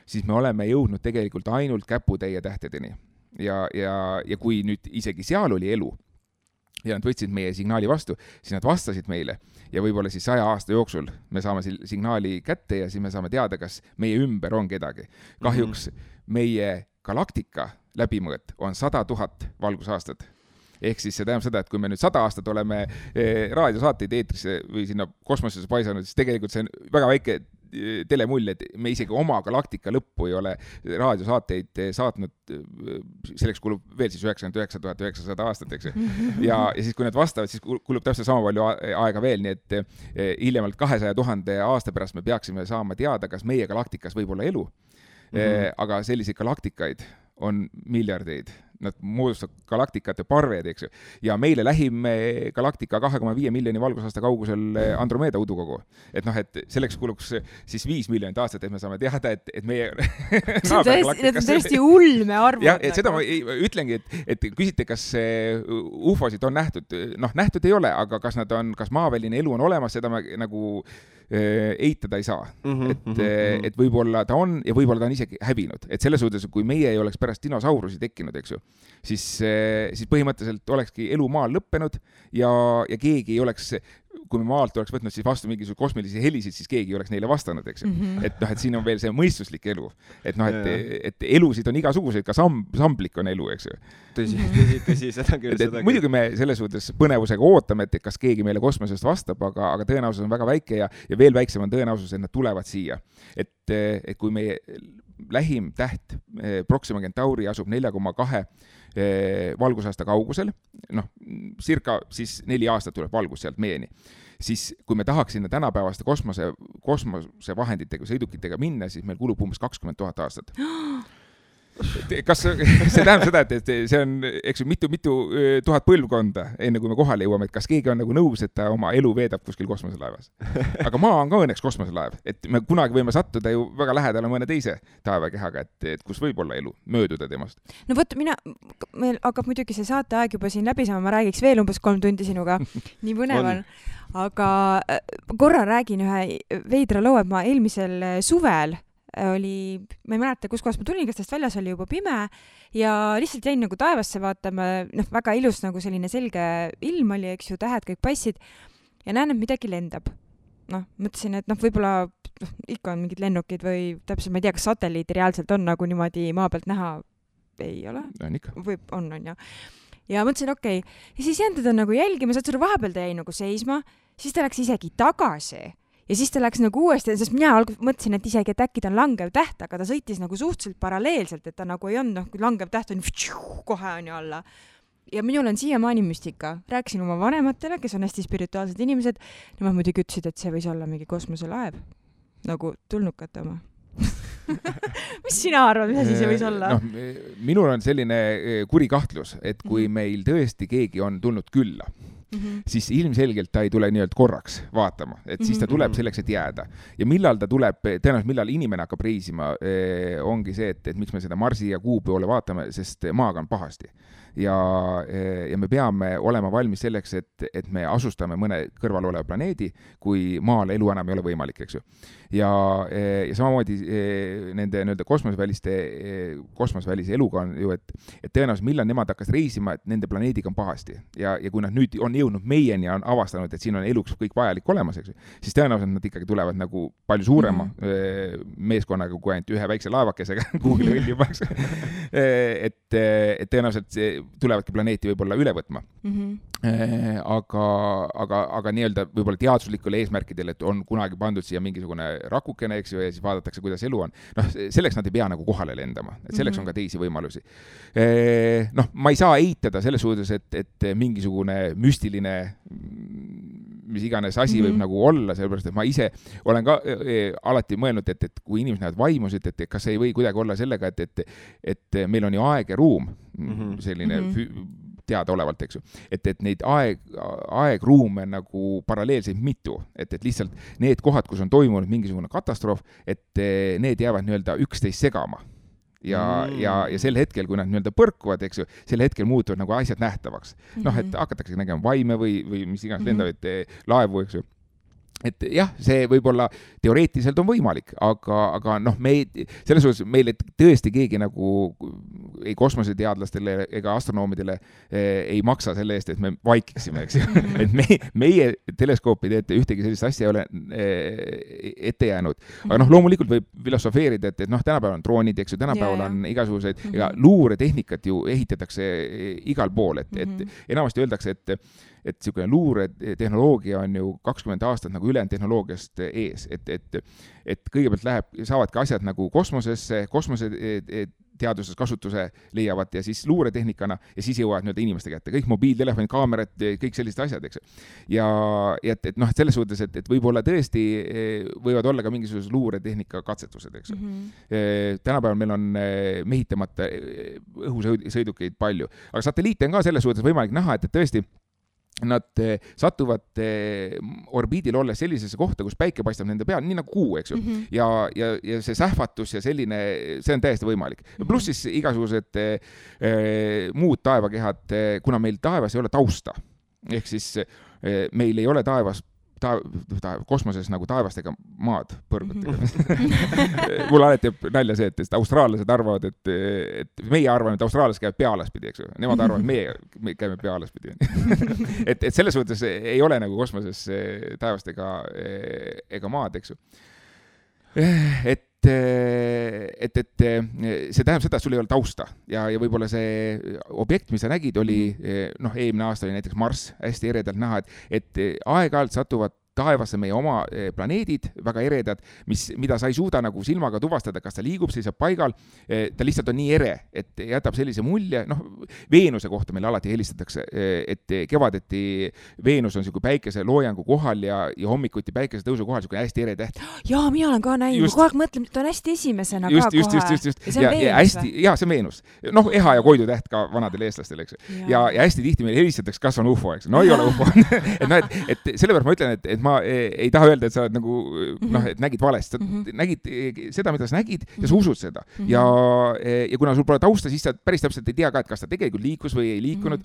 siis me oleme jõudnud tegelikult ainult käputäie tähtedeni. Ja kui nüüd isegi seal oli elu ja nad võtsid meie signaali vastu, siis nad vastasid meile ja võib-olla siis 100 aasta jooksul me saame signaali kätte ja siis me saame teada, kas meie ümber on kedagi. Kahjuks meie galaktika läbimõõt on 100 000 valgusaastat. Ehk siis see tähendab seda, et kui me nüüd 100 aastat oleme raadiosaateid eetrisse või sinna kosmosesse paisanud, siis tegelikult see on väga väike telemull, et me isegi oma galaktika lõppu ei ole raadiosaateid saatnud, selleks kulub veel siis 99 900 aastat, eks. Ja siis kui nad vastavad, siis kulub täpselt sama palju aega veel, nii et hiljemalt 200 000 aasta pärast me peaksime saama teada, kas meie galaktikas võib olla elu. Aga selliseid galaktikaid on miljardeid. Nad moodustavad galaktikate parved, eks ju. Ja meile lähim galaktika 2,5 miljoni valgusaasta kaugusel Andromeeda udukogu. Et selleks kuluks siis 5 miljonit aastat, et me saame teada, et meie Need on tõesti ulme arvud. Ja, et seda ma ütlengi, et küsite, kas UFO-sid on nähtud. Nähtud ei ole, aga kas maaväline elu on olemas, seda me nagu eitada ei saa. Et võib-olla ta on ja võib-olla ta on isegi hävinud. Et selles suhtes, kui meie ei oleks pärast dinosaurusi tekkinud, eks ju, siis põhimõtteliselt olekski elu maal lõppenud ja keegi ei oleks, kui me maalt oleks võtnud siis vastu mingisuguse kosmilisi helisid, siis keegi ei oleks neile vastanud, eks ju. Et siin on veel see mõistuslik elu. Et elusid on igasuguseid, ka samblik on elu, eks ju. Tõsi, seda küll. Muidugi me selles suhtes põnevusega ootame, et kas keegi meile kosmosest vastab, aga tõenäosus on väga väike ja veel väiksem on tõenäosus, et nad tulevad siia. Et kui meie lähim täht Proxima Centauri asub 4,2 valgusaasta kaugusel, circa siis 4 aastat tuleb valgus sealt meieni, siis kui me tahaks sinna tänapäevaste kosmose vahenditega, sõidukitega minna, siis meil kulub umbes 20 000 aastat. Kas see tähendab seda, et see on, eks ju, mitu tuhat põlvkonda, enne kui me kohale jõuame, et kas keegi on nagu nõus, et ta oma elu veedab kuskil kosmoselaevas. Aga maa on ka õnneks kosmoselaev, et me kunagi võime sattuda ju väga lähedale mõne teise taevakehaga, et kus võib olla elu, mööduda temast. No võt, meil hakkab muidugi see saateaeg juba siin läbi saama, ma räägiks veel umbes 3 tundi sinuga, nii põnev on. Aga korra räägin ühe veidra loo, et ma eelmisel suvel oli, ma ei mäleta, kus kohas ma tulin, kas täst väljas oli juba pime ja lihtsalt jäin nagu taevasse vaatama, väga ilus nagu selline selge ilm oli, eks ju, tähed kõik passid ja näen, et midagi lendab. Mõtlesin, et võib-olla ikka on mingid lennukid või täpselt, ma ei tea, kas satelliidi reaalselt on nagu niimoodi maa pealt näha, ei ole? On ikka. On ja. Ja mõtlesin, okei. Ja siis jäin teda nagu jälgima, saad selle vahepeal ta jäi nagu seisma, siis ta läks isegi tagasi. Ja siis ta läks nagu uuesti, sest mina mõtlesin, et isegi, et äkki ta on langev täht, aga ta sõitis nagu suhteliselt paralleelselt, et ta nagu ei olnud, kui langev täht on kohe on ju alla. Ja minul on siiamaani müstika. Rääkisin oma vanematele, kes on hästi spirituaalsed inimesed, nemad muidugi ütlesid, et see võis olla mingi kosmoselaev. Nagu tulnukate oma. Mis sina arvad, mis asi see võis olla? Minul on selline kuri kahtlus, et kui meil tõesti keegi on tulnud külla, siis ilmselgelt ta ei tule nii-öelda korraks vaatama, et siis ta tuleb selleks, et jääda. Ja millal ta tuleb, tõenäoliselt millal inimene hakkab reisima, ongi see, et miks me seda Marsi ja Kuu poole vaatame, sest maaga on pahasti. Ja me peame olema valmis selleks, et me asustame mõne kõrval oleva planeedi, kui maal elu enam ei ole võimalik, eks ju. Ja samamoodi nende kosmosvälise eluga on ju, et tõenäoliselt millal nemad hakkas reisima, et nende planeediga on pahasti. Ja kui nad nüüd on jõudnud meieni ja on avastanud, et siin on eluks kõik vajalik olemas, eks ju, siis tõenäoliselt nad ikkagi tulevad nagu palju suurema meeskonnaga kui ainult ühe väikse laevakesega kuhugile õljumaks. Et tõenäoliselt tulevadki planeeti võib-olla üle võtma. Aga nii-öelda võib-olla teaduslikule eesmärkidele, et on kunagi pandud siia mingisugune rakukene, eks ju, ja siis vaadatakse, kuidas elu on. Noh, selleks nad ei pea nagu kohale lendama, et selleks on ka teisi võimalusi. Noh, ma ei saa eitada selles suhtes, et mingisugune müstiline mis iganes asi võib nagu olla, sellepärast, et ma ise olen ka alati mõelnud, et kui inimesed näevad vaimusid, et kas ei või kuidagi olla sellega, et meil on ju aeg ja ruum, selline teadaolevalt, eks ju. Et neid aegruume nagu paralleelseid mitu, et lihtsalt need kohad, kus on toimunud mingisugune katastroof, et need jäävad nii-öelda üksteist segama. Ja sel hetkel, kui nad nii-öelda põrkuvad, eks ju, sel hetkel muutuvad nagu asjad nähtavaks. Noh, et hakatakse nägema vaime või mis iganes lendavaid laevu, eks ju. Et jah, see võib-olla teoreetiliselt on võimalik, aga noh, selles suhtes meile tõesti keegi nagu ei kosmoseteadlastele ega astronoomidele ei maksa selle eest, et me vaikiksime, eks ju. Et meie teleskoopide ette ühtegi sellist asja ei ole ette jäänud. Aga noh, loomulikult võib filosofeerida, et noh, tänapäeval on droonid, eks ju, tänapäeval on igasuguseid, ega luuretehnikat ju ehitatakse igal pool, et enamasti öeldakse, et niisugune luuretehnoloogia on ju 20 aastat nagu ülejäänud tehnoloogiast ees, et kõigepealt saavadki asjad nagu kosmoseteaduses kasutuse leiavad ja siis luuretehnikana ja siis jõuavad nii-öelda inimeste kätte. Kõik mobiiltelefoni, kaamerad, kõik sellised asjad, eks. Ja et noh, et selles suhtes, et võib-olla tõesti võivad olla ka mingisugused luuretehnika katsetused, eks. Tänapäeval meil on mehitamata õhusõidukeid palju, aga satelliite on ka selles suhtes võimalik näha, et tõesti nad satuvad orbiidil olles sellisesse kohta, kus päike paistab nende peal, nii nagu kuu, eks ju. Ja see sähvatus ja selline, see on täiesti võimalik. Pluss siis igasugused muud taevakehad, kuna meil taevas ei ole tausta. Ehk siis meil ei ole taevas kosmoses nagu taevastega maad põrgutega. Mul alati jääb nalja see, et austraallased arvavad, et meie arvame, et austraallased käivad pealaspidi, eks ju. Nemad arvavad, et me käime pealaspidi. et selles suhtes ei ole nagu kosmoses taevastega ega maad, eks ju. Et see tähendab seda, et sul ei ole tausta ja võib-olla see objekt, mis sa nägid, oli, noh, eelmine aasta oli näiteks Marss hästi eredalt näha, et aeg-ajalt satuvad taevasse meie oma planeedid, väga eredad, mida sa ei suuda nagu silmaga tuvastada, kas ta liigub, seisab paigal, ta lihtsalt on nii ere, et jätab sellise mulje, noh, Veenuse kohta meil alati helistatakse, et kevadeti Veenus on selline päikese loojangu kohal ja hommikuti päikese tõusu kohal selline hästi ere täht. Jaa, mina olen ka näinud, kogu aeg mõtlen, et on hästi esimesena ka kohe. Just. Ja see on Veenus. Noh, Eha ja Koidu täht ka vanadel eestlastel, eks. Ja hästi tihti meil helistatakse, kas on UFO, eks. No ei ole UFO. et sellepärast ma ütlen, et ma ei taha öelda, et sa oled nagu, noh, et nägid valest. Sa nägid seda, mida sa nägid ja sa usud seda. Ja kuna sul pole tausta, siis sa päris täpselt ei tea ka, et kas ta tegelikult liikus või ei liikunud.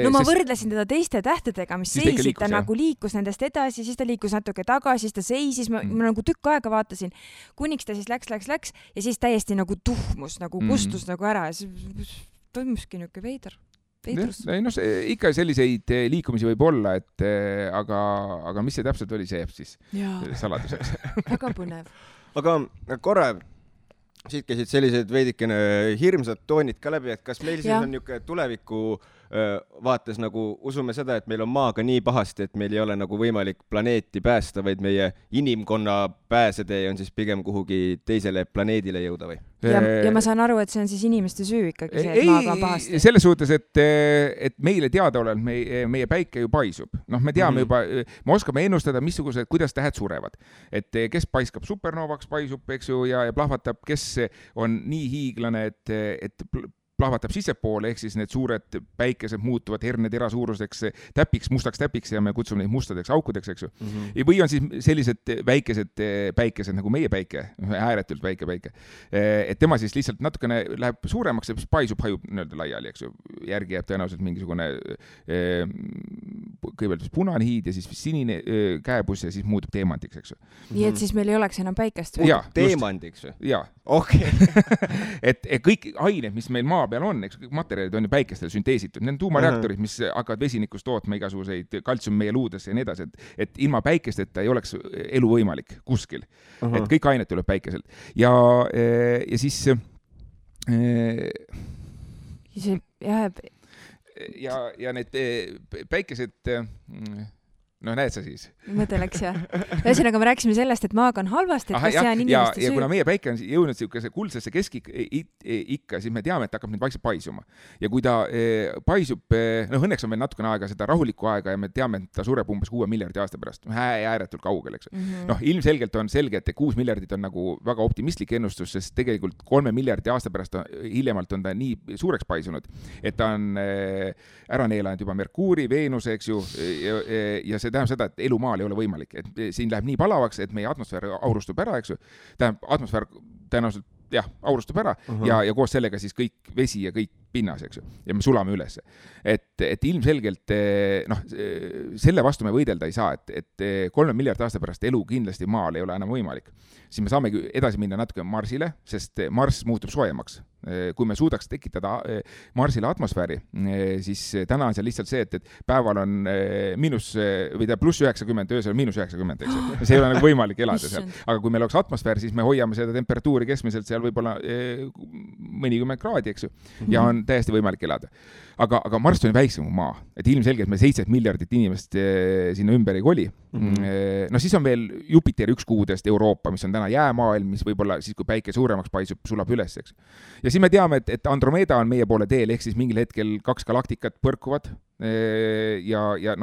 No ma võrdlesin teda teiste tähtedega, mis seisid, ta nagu liikus nendest edasi, siis ta liikus natuke tagasi, siis ta seisis, ma nagu tükk aega vaatasin, kuniks ta siis läks ja siis täiesti nagu tuhmus, nagu kustus nagu ära ja siis toimuski niuke veidrus. No, ikka selliseid liikumisi võib olla, aga mis see täpselt oli, see jääb siis saladuseks. Väga põnev. Aga korra siit käisid sellised veidikene hirmsad toonid ka läbi, et kas meil siis on niuke tuleviku vaates nagu usume seda, et meil on maaga nii pahasti, et meil ei ole nagu võimalik planeeti päästa, vaid meie inimkonna pääsetee on siis pigem kuhugi teisele planeedile jõuda või? Ja ma saan aru, et see on siis inimeste süü ikkagi see, et maaga on pahasti. Selles suhtes, et meile teadaolevalt meie päike ju paisub. Noh, me teame juba, me oskame ennustada, missugused, kuidas tähed surevad. Et kes paiskab supernovaks, paisub, eks ju, ja plahvatab, kes on nii hiiglane, et plahvatab sissepoole, ehk siis need suured päikesed muutuvad hernetera suuruseks täpiks, mustaks täpiks ja me kutsume neid mustadeks aukudeks, eks ju. Või on siis sellised väikesed päikesed nagu meie päike, ääretult väike päike. Et tema siis lihtsalt natukene läheb suuremaks ja paisub, hajub nii-öelda laiali, eks ju. Järgi jääb tõenäoliselt mingisugune kõigepealt punane hiid ja siis sinine käepus ja siis muutub teemandiks, eks ju. Nii et siis meil ei oleks enam päikest? Teemandiks või? Jaa. Okay. et kõik ained, mis meil maa peal on, eks kõik materjalid on ju päikestel sünteesitud, need on tuumareaktorid, mis hakkavad vesinikust tootma igasuguseid kaltsiumi meie luudesse ja nii edasi, et ilma päikesteta ei oleks elu võimalik kuskil. Et kõik ained tuleb päikeselt. Ja siis see jääb ja need päikesed, no näed sa siis. Mõte läks jah. Ühesõnaga me rääkisime sellest, et maaga on halvasti, et kas see on inimeste ja kuna meie päike on jõudnud siukese kuldsesse keskikka, siis me teame, et hakkab nüüd vaikselt paisuma. Ja kui ta paisub, õnneks on meil natukene aega seda rahulikku aega ja me teame, et ta sureb umbes 6 miljardi aasta pärast. Ääretult kaugel, eks. Ilmselgelt on selge, et 6 miljardit on nagu väga optimistlik ennustus, sest tegelikult 3 miljardi aasta pärast hiljemalt on ta nii suureks paisunud, et ta on ära neelanud juba Merkuuri, Veenuse, eks ju, ja see tähendab seda, et elu maal ei ole võimalik, et siin läheb nii palavaks, et meie atmosfäär aurustub ära, eks ju. Tähendab, atmosfäär tõenäoliselt aurustub ära ja koos sellega siis kõik vesi ja kõik pinnas, eks ju. Ja me sulame üles. Et ilmselgelt, selle vastu me võidelda ei saa, et 3 miljardi aasta pärast elu kindlasti maal ei ole enam võimalik. Siis me saamegi edasi minna natuke Marsile, sest Mars muutub soojemaks. Kui me suudaks tekitada Marsile atmosfääri, siis täna on seal lihtsalt see, et päeval on pluss 90, öösel -90, eks ju. See ei ole nagu võimalik elada seal. Aga kui meil oleks atmosfäär, siis me hoiame seda temperatuuri keskmiselt seal võib-olla mõnikümmend kraadi, eks ju. Ja on täiesti võimalik elada. Aga Mars on väiksem kui maa. Et ilmselgelt me 7 miljardit inimest sinna ümber ei koli. No siis on veel Jupiteri üks kuudest Euroopa, mis on täna jäämaailm, mis võib-olla siis, kui päike suuremaks paisub, sulab üles, eks. Ja siis me teame, et Andromeda on meie poole teel, ehk siis mingil hetkel 2 galaktikat põrkuvad ja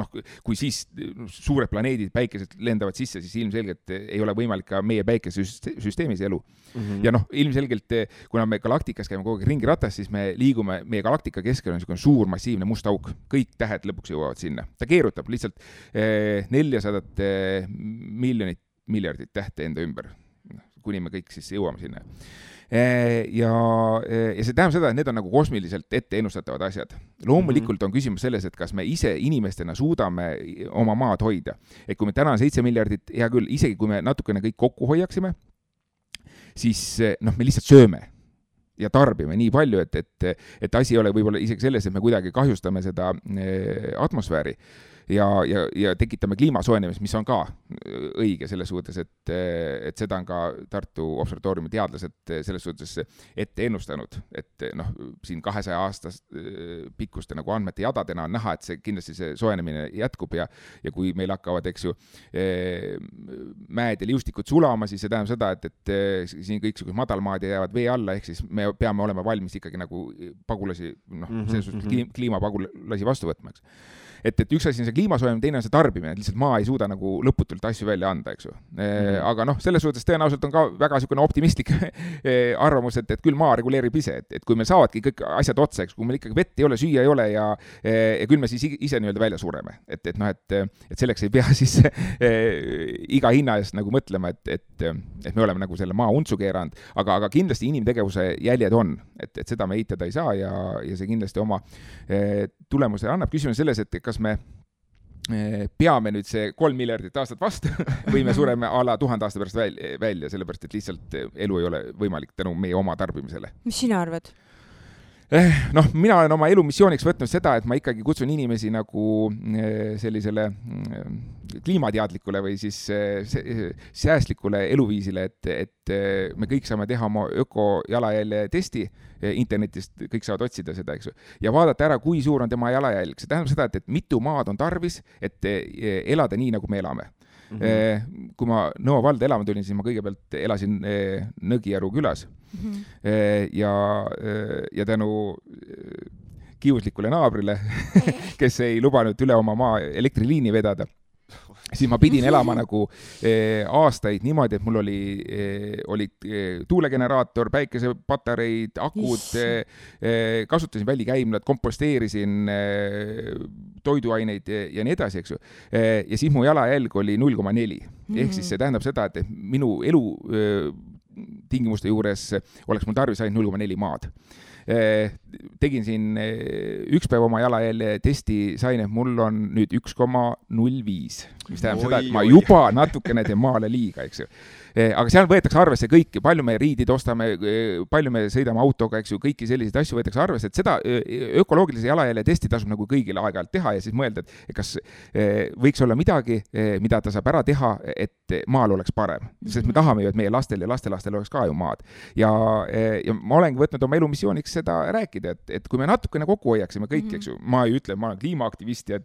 kui siis suured planeedid, päikesed lendavad sisse, siis ilmselgelt ei ole võimalik ka meie päikesesüsteemis elu. Ja ilmselgelt, kuna me galaktikas käime kogu aeg ringiratast, siis me liigume, meie galaktika keskel on niisugune suur massiivne must auk. Kõik tähed lõpuks jõuavad sinna. Ta keerutab lihtsalt 400 miljardit tähte enda ümber, kuni me kõik siis jõuame sinna. Ja see tähendab seda, et need on nagu kosmiliselt ette ennustatavad asjad. Loomulikult on küsimus selles, et kas me ise inimestena suudame oma maad hoida. Et kui me täna on 7 miljardit, hea küll, isegi kui me natukene kõik kokku hoiaksime, siis me lihtsalt sööme ja tarbime nii palju, et asi ei ole võib-olla isegi selles, et me kuidagi kahjustame seda atmosfääri. Ja tekitame kliimasoojenemist, mis on ka õige selles suhtes, et seda on ka Tartu observatooriumi teadlased selles suhtes ette ennustanud, et siin 200 aastast pikkuste nagu andmete jadadena on näha, et see kindlasti see soojenemine jätkub ja kui meil hakkavad, eks ju, mäed ja liustikud sulama, siis see tähendab seda, et siin kõiksugused madalmaad jäävad vee alla, ehk siis me peame olema valmis ikkagi nagu pagulasi, selles suhtes kliimapagulasi vastu võtmaks. Et üks asi on see kliimasoojenemine, teine on see tarbimine, et lihtsalt maa ei suuda nagu lõputult asju välja anda, eks ju. Aga selles suhtes tõenäoliselt on ka väga niisugune optimistlik arvamus, et küll maa reguleerib ise, et kui meil saavadki kõik asjad otsa, eks, kui meil ikkagi vett ei ole, süüa ei ole ja küll me siis ise nii-öelda välja sureme. Et selleks ei pea siis iga hinna eest nagu mõtlema, et me oleme nagu selle maa untsu keeranud, aga kindlasti inimtegevuse jäljed on, et seda me eitada ei saa ja see kindlasti oma tulemuse annab. Küsimus selles, et kas me peame nüüd see 3 miljardit aastat vastu või me sureme ala 1000 aasta pärast välja, sellepärast, et lihtsalt elu ei ole võimalik tänu meie oma tarbimisele. Mis sina arvad? Mina olen oma elumissiooniks võtnud seda, et ma ikkagi kutsun inimesi nagu sellisele kliimateadlikule või siis säästlikule eluviisile, et me kõik saame teha oma ökojalajälje testi internetist, kõik saavad otsida seda, eks ju, ja vaadata ära, kui suur on tema jalajälg. See tähendab seda, et mitu maad on tarvis, et elada nii, nagu me elame. Kui ma Nõo valda elama tulin, siis ma kõigepealt elasin Nõgijaru külas ja tänu kiuslikule naabrile, kes ei lubanud üle oma maa elektriliini vedada, siis ma pidin elama nagu aastaid niimoodi, et mul olid tuulegeneraator, päikesepatareid, akud, kasutasin välikäimlad, komposteerisin toiduaineid ja nii edasi, eks ju. Ja siis mu jalajälg oli 0,4. Ehk siis see tähendab seda, et minu elu tingimuste juures oleks mul tarvis ainult 0,4 maad. Tegin siin üks päev oma jalajälje testi, sain, et mul on nüüd 1,05, mis tähendab seda, et ma juba natukene teen maale liiga, eks ju. Aga seal võetakse arvesse kõiki, palju me riidid ostame, palju me sõidame autoga, eks ju, kõiki selliseid asju võetakse arvesse, et seda ökoloogilise jalajälje testi tasub nagu kõigile aeg-ajalt teha ja siis mõelda, et kas võiks olla midagi, mida ta saab ära teha, et maal oleks parem. Sest me tahame ju, et meie lastel ja lastelastel oleks ka ju maad. Ja ma olengi võtnud oma elumissiooniks võiks seda rääkida, et kui me natukene kokku hoiaksime kõik, eks ju, ma ei ütle, ma olen kliimaaktivist ja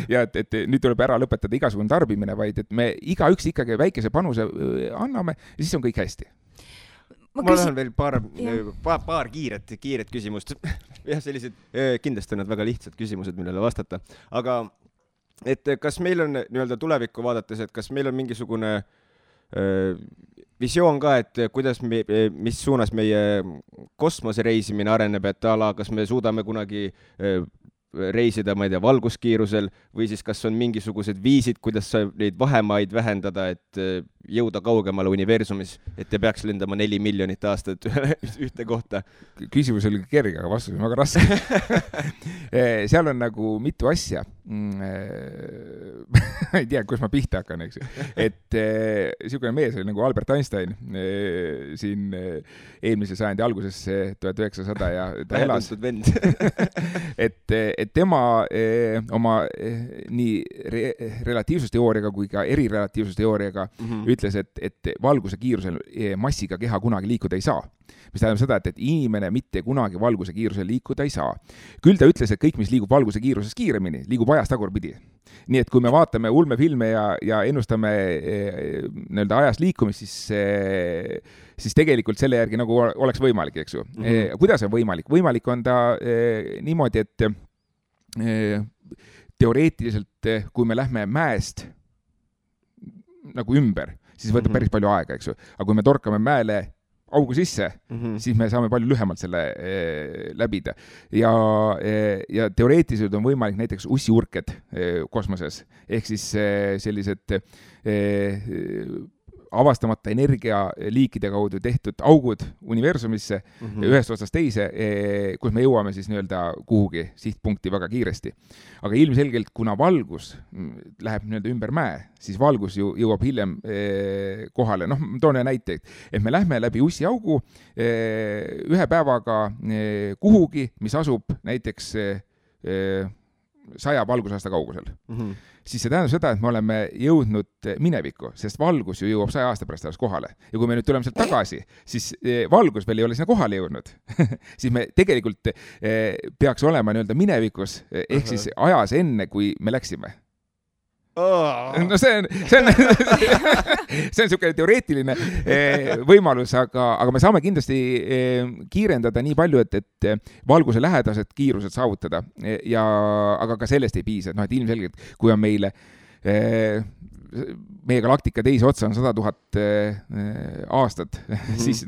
ja et nüüd tuleb ära lõpetada igasugune tarbimine, vaid et me igaüks ikkagi väikese panuse anname ja siis on kõik hästi. Ma lähen veel paar kiiret küsimust. Jah, sellised kindlasti on need väga lihtsad küsimused, millele vastata. Aga et kas meil on nii-öelda tulevikku vaadates, et kas meil on mingisugune visioon ka, et kuidas mis suunas meie kosmose reisimine areneb, et kas me suudame kunagi reisida, ma ei tea, valguskiirusel või siis kas on mingisugused viisid, kuidas neid vahemaid vähendada, et jõuda kaugemale universumis, et ei peaks lendama 4 miljonit aastat ühte kohta. Küsimus oli kerge, aga vastus on väga raske. Seal on nagu mitu asja. Ei tea, kus ma pihta hakkan, eks. Et niisugune mees oli nagu Albert Einstein siin eelmise sajandi alguses 1900 ja ta elas. Et tema oma nii relatiivsusteooriaga kui ka erirelatiivsusteooriaga ütles, et valguse kiirusel massiga keha kunagi liikuda ei saa. Mis tähendab seda, et inimene mitte kunagi valguse kiirusel liikuda ei saa. Küll ta ütles, et kõik, mis liigub valguse kiiruses kiiremini, liigub ajas tagurpidi. Nii et kui me vaatame ulmefilme ja ennustame nii-öelda ajas liikumist, siis tegelikult selle järgi nagu oleks võimalik, eks ju. Kuidas on võimalik? Võimalik on ta niimoodi, et teoreetiliselt, kui me lähme mäest nagu ümber, siis võtab päris palju aega, eks ju. Aga kui me torkame mäele augu sisse, siis me saame palju lühemalt selle läbida. Ja teoreetiliselt on võimalik näiteks ussiurked kosmoses, ehk siis sellised avastamata energialiikide kaudu tehtud augud universumisse ühest otsast teise, kus me jõuame siis nii-öelda kuhugi sihtpunkti väga kiiresti. Aga ilmselgelt, kuna valgus läheb nii-öelda ümber mäe, siis valgus ju jõuab hiljem kohale. Noh, toon näite, et me lähme läbi ussiaugu ühe päevaga kuhugi, mis asub näiteks 100 valgusaasta kaugusel. Siis see tähendab seda, et me oleme jõudnud minevikku, sest valgus ju jõuab 100 aasta pärast alles kohale. Ja kui me nüüd tuleme sealt tagasi, siis valgus veel ei ole sinna kohale jõudnud. Siis me tegelikult peaks olema nii-öelda minevikus, ehk siis ajas enne, kui me läksime. No see on niisugune teoreetiline võimalus, aga me saame kindlasti kiirendada nii palju, et valguse lähedased kiirused saavutada. Aga ka sellest ei piisa. Et ilmselgelt, kui on meile meie galaktika teise otsa on 100 000 aastat, siis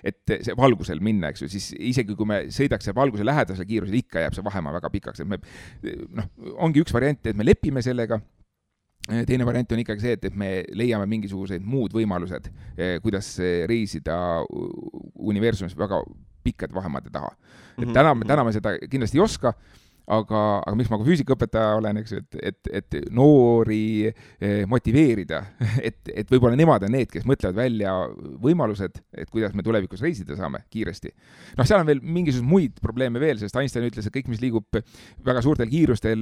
et see valgusel minna, eks ju, siis isegi kui me sõidaks valguse lähedasel kiirusel, ikka jääb see vahemaa väga pikaks. Ongi üks variant, et me lepime sellega. Teine variant on ikkagi see, et me leiame mingisugused muud võimalused, kuidas reisida universumis väga pikkade vahemaade taha. Et täna me seda kindlasti ei oska, aga miks ma ka füüsikaõpetaja olen, eks, et noori motiveerida, et võib-olla nemad on need, kes mõtlevad välja võimalused, et kuidas me tulevikus reisida saame kiiresti. Seal on veel mingisugused muid probleeme veel, sest Einstein ütles, et kõik, mis liigub väga suurtel kiirustel,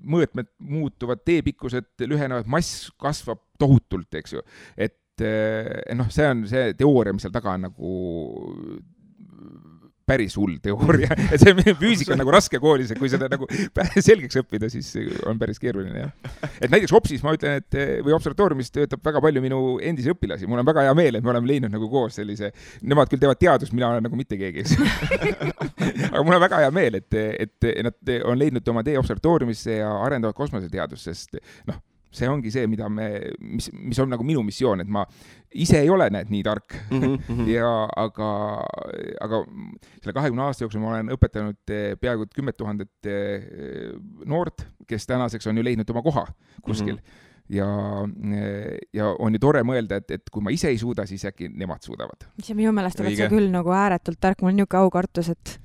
mõõtmed muutuvad, teepikkused lühenevad, mass kasvab tohutult, eks ju. Et see on see teooria, mis seal taga on nagu päris hull teooria. Et see füüsika on nagu raske koolis, et kui seda nagu selgeks õppida, siis on päris keeruline. Et näiteks Hopsis ma ütlen, või observatooriumis töötab väga palju minu endisi õpilasi. Mul on väga hea meel, et me oleme leidnud nagu koos sellise, nemad küll teevad teadust, mina olen nagu mitte keegi. Aga mul on väga hea meel, et nad on leidnud oma tee observatooriumisse ja arendavad kosmoseteadust, sest see ongi see, mis on nagu minu missioon, et ma ise ei ole nii tark. Aga selle 20 aasta jooksul ma olen õpetanud peaaegu 10 000 noort, kes tänaseks on ju leidnud oma koha kuskil. Ja on ju tore mõelda, et kui ma ise ei suuda, siis äkki nemad suudavad. See minu meelest oled sa küll nagu ääretult tark, mul on niuke aukartus, et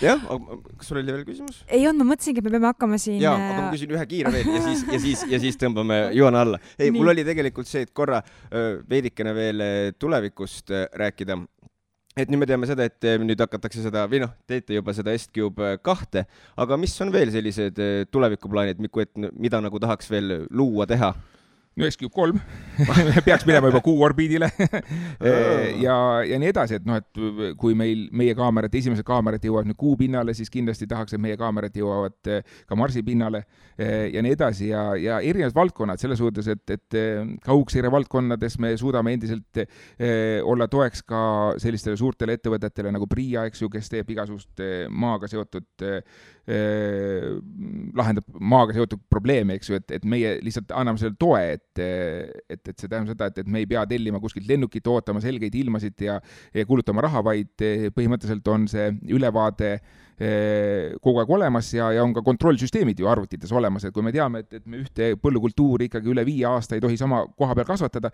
Jah, kas sul oli veel küsimus? Ei olnud, ma mõtlesingi, et me peame hakkama siin... Jaa, aga ma küsin ühe kiire veel ja siis tõmbame joone alla. Ei, mul oli tegelikult see, et korra veidikene veel tulevikust rääkida. Et nüüd me teame seda, et nüüd hakatakse seda, või teete juba seda S-Cube 2, aga mis on veel sellised tulevikuplaanid, mida nagu tahaks veel luua, teha? no SQ3 peaks minema juba Kuu orbiidile ja nii edasi, et noh, et kui meie kaamerad, esimesed kaamerad jõuavad nüüd Kuu pinnale, siis kindlasti tahaks, et meie kaamerad jõuavad ka Marsi pinnale ja nii edasi ja erinevad valdkonnad selles suhtes, et kaugseire valdkonnades me suudame endiselt olla toeks ka sellistele suurtele ettevõtetele nagu PRIA, eks ju, kes teeb igasugust maaga seotud lahendab maaga seotud probleeme, eks ju, et meie lihtsalt anname selle toe, et see tähendab seda, et me ei pea tellima kuskilt lennukit, ootama selgeid ilmasid ja kulutama raha, vaid põhimõtteliselt on see ülevaade kogu aeg olemas ja on ka kontrollsüsteemid ju arvutites olemas, et kui me teame, et me ühte põllukultuuri ikkagi üle 5 aasta ei tohi sama koha peal kasvatada,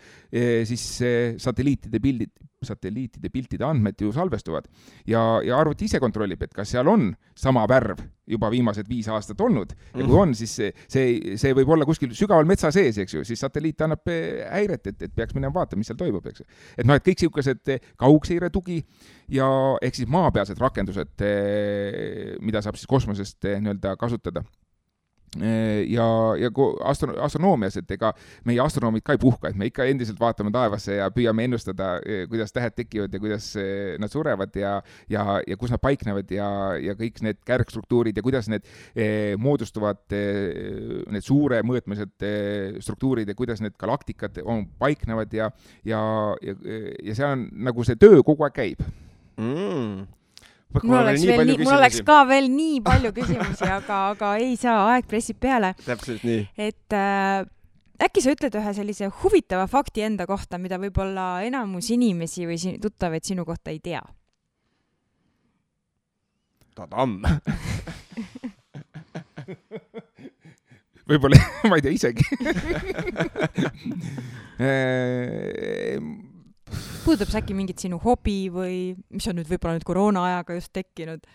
siis satelliitide piltide andmed ju salvestuvad ja arvuti ise kontrollib, et kas seal on sama värv juba viimased 5 aastat olnud ja kui on, siis see võib olla kuskil sügaval metsa sees, eks ju, siis satelliit annab häiret, et peaks minema vaatama, mis seal toimub, eks ju. Et noh, et kõik siukesed kaugseire tugi ja ehk siis maapealsed rakendused, mida saab siis kosmosest nii-öelda kasutada. Ja astronoomias, et ega meie astronoomid ka ei puhka, et me ikka endiselt vaatame taevasse ja püüame ennustada, kuidas tähed tekivad ja kuidas nad surevad ja kus nad paiknevad ja kõik need kärgstruktuurid ja kuidas need moodustuvad, need suure mõõtmised struktuurid ja kuidas need galaktikad paiknevad ja see on nagu see töö kogu aeg käib. Mul oleks ka veel nii palju küsimusi, aga ei saa, aeg pressib peale. Täpselt nii. Et äkki sa ütled ühe sellise huvitava fakti enda kohta, mida võib-olla enamus inimesi või tuttavaid sinu kohta ei tea? Tadam! Võib-olla, ma ei tea isegi. Puudutab see äkki mingit sinu hobi või mis on nüüd võib-olla nüüd koroona ajaga just tekkinud?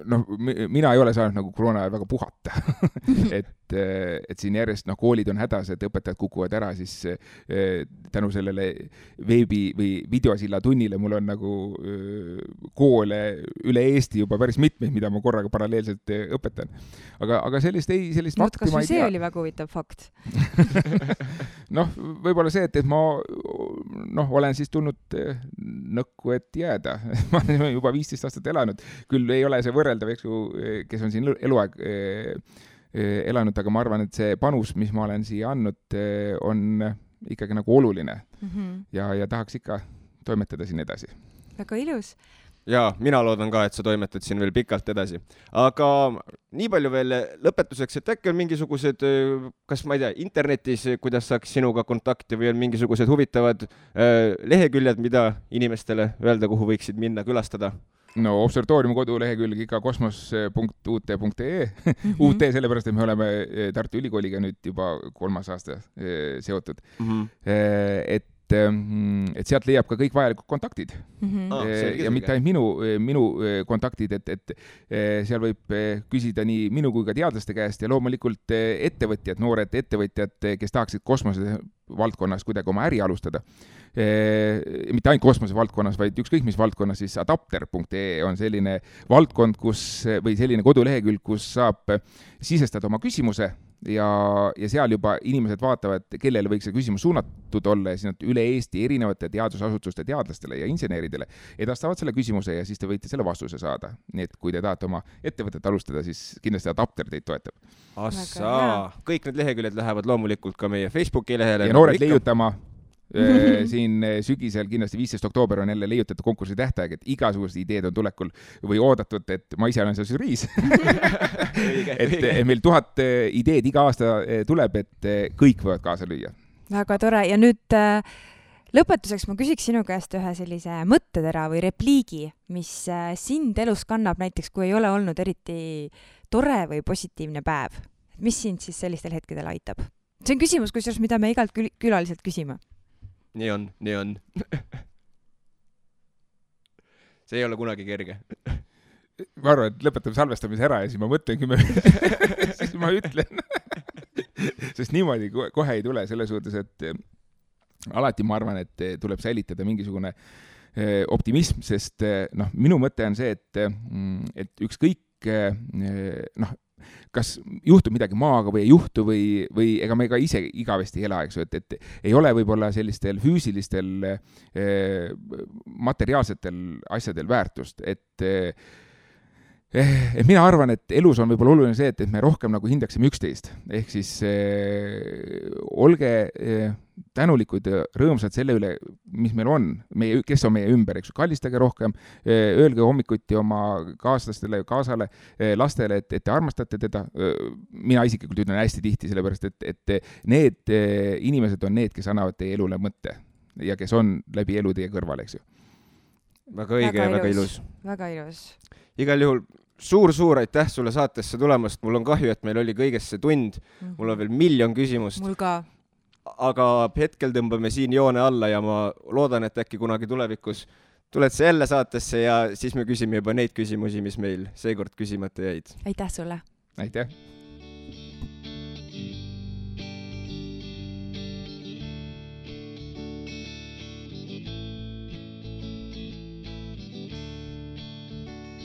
No, mina ei ole saanud nagu koroona ajal väga puhata. et siin järjest koolid on hädas, et õpetajad kukuvad ära, siis tänu sellele veebi või videosilla tunnile mul on nagu koole üle Eesti juba päris mitmeid, mida ma korraga paralleelselt õpetan. Aga sellist fakti ma ei tea. See oli väga huvitav fakt. Noh, võib-olla see, et ma olen siis tulnud nõkku, et jääda. Ma olen juba 15 aastat elanud. Küll ei ole see võrreldav, eks ju, kes on siin eluaeg elanud, aga ma arvan, et see panus, mis ma olen siia andnud, on ikkagi nagu oluline. Ja tahaks ikka toimetada siin edasi. Väga ilus. Ja, mina loodan ka, et sa toimetad siin veel pikalt edasi. Aga nii palju veel lõpetuseks, et äkki on mingisugused, kas ma ei tea, internetis, kuidas saaks sinuga kontakti või on mingisugused huvitavad leheküljed, mida inimestele öelda, kuhu võiksid minna külastada? No observatoriumi kodulehekülg ikka kosmos.ut.ee UT sellepärast, et me oleme Tartu Ülikooliga nüüd juba 3. aasta seotud. Et sealt leiab ka kõik vajalikud kontaktid. Ja mitte ainult minu kontaktid, et seal võib küsida nii minu kui ka teadlaste käest ja loomulikult ettevõtjad, noored ettevõtjad, kes tahaksid kosmose valdkonnas kuidagi oma äri alustada. Mitte ainult kosmose valdkonnas, vaid ükskõik mis valdkonnas, siis adapter.ee on selline valdkond, või selline kodulehekülg, kus saab sisestada oma küsimuse ja seal juba inimesed vaatavad, kellele võiks see küsimus suunatud olla ja siis nad üle Eesti erinevate teadusasutuste teadlastele ja inseneridele edastavad selle küsimuse ja siis te võite selle vastuse saada. Nii et kui te tahate oma ettevõtet alustada, siis kindlasti adapter teid toetab. Kõik need leheküljed lähevad loomulikult ka meie Facebooki lehele. Ja noored leiutama siin sügisel kindlasti 15. oktoober on jälle leiutajate konkursi tähtaeg, et igasugused ideed on tulekul või oodatud, et ma ise olen seal žüriis. et meil 1000 ideed iga aasta tuleb, et kõik võivad kaasa lüüa. Väga tore. Ja nüüd lõpetuseks ma küsiks sinu käest ühe sellise mõttetera või repliigi, mis sind elus kannab näiteks, kui ei ole olnud eriti tore või positiivne päev. Mis sind siis sellistel hetkedel aitab? See on küsimus, mida me igalt külaliselt küsime. Nii on. See ei ole kunagi kerge. Ma arvan, et lõpetame salvestamise ära ja siis ma mõtlen, siis ma ütlen. Sest niimoodi kohe ei tule selles suhtes, et alati ma arvan, et tuleb säilitada mingisugune optimism, sest minu mõte on see, et ükskõik kõik kas juhtub midagi maaga või ei juhtu või ega me ka ise igavesti ei ela, eks ju, et ei ole võib-olla sellistel füüsilistel materiaalsetel asjadel väärtust, et mina arvan, et elus on võib-olla oluline see, et me rohkem nagu hindaksime üksteist. Ehk siis olge tänulikud ja rõõmsad selle üle, mis meil on, kes on meie ümber, eks ju, kallistage rohkem, öelge hommikuti oma kaaslastele, kaasale, lastele, et te armastate teda. Mina isiklikult ütlen hästi tihti, sellepärast, et need inimesed on need, kes annavad teie elule mõtte ja kes on läbi elu teie kõrval, eks ju. Väga õige ja väga ilus. Väga ilus. Igal juhul suur aitäh sulle saatesse tulemast. Mul on kahju, et meil oli kõigest see tund. Mul on veel miljon küsimust. Mul ka. Aga hetkel tõmbame siin joone alla ja ma loodan, et äkki kunagi tulevikus tuled sa jälle saatesse ja siis me küsime juba neid küsimusi, mis meil seekord küsimata jäid. Aitäh sulle. Aitäh.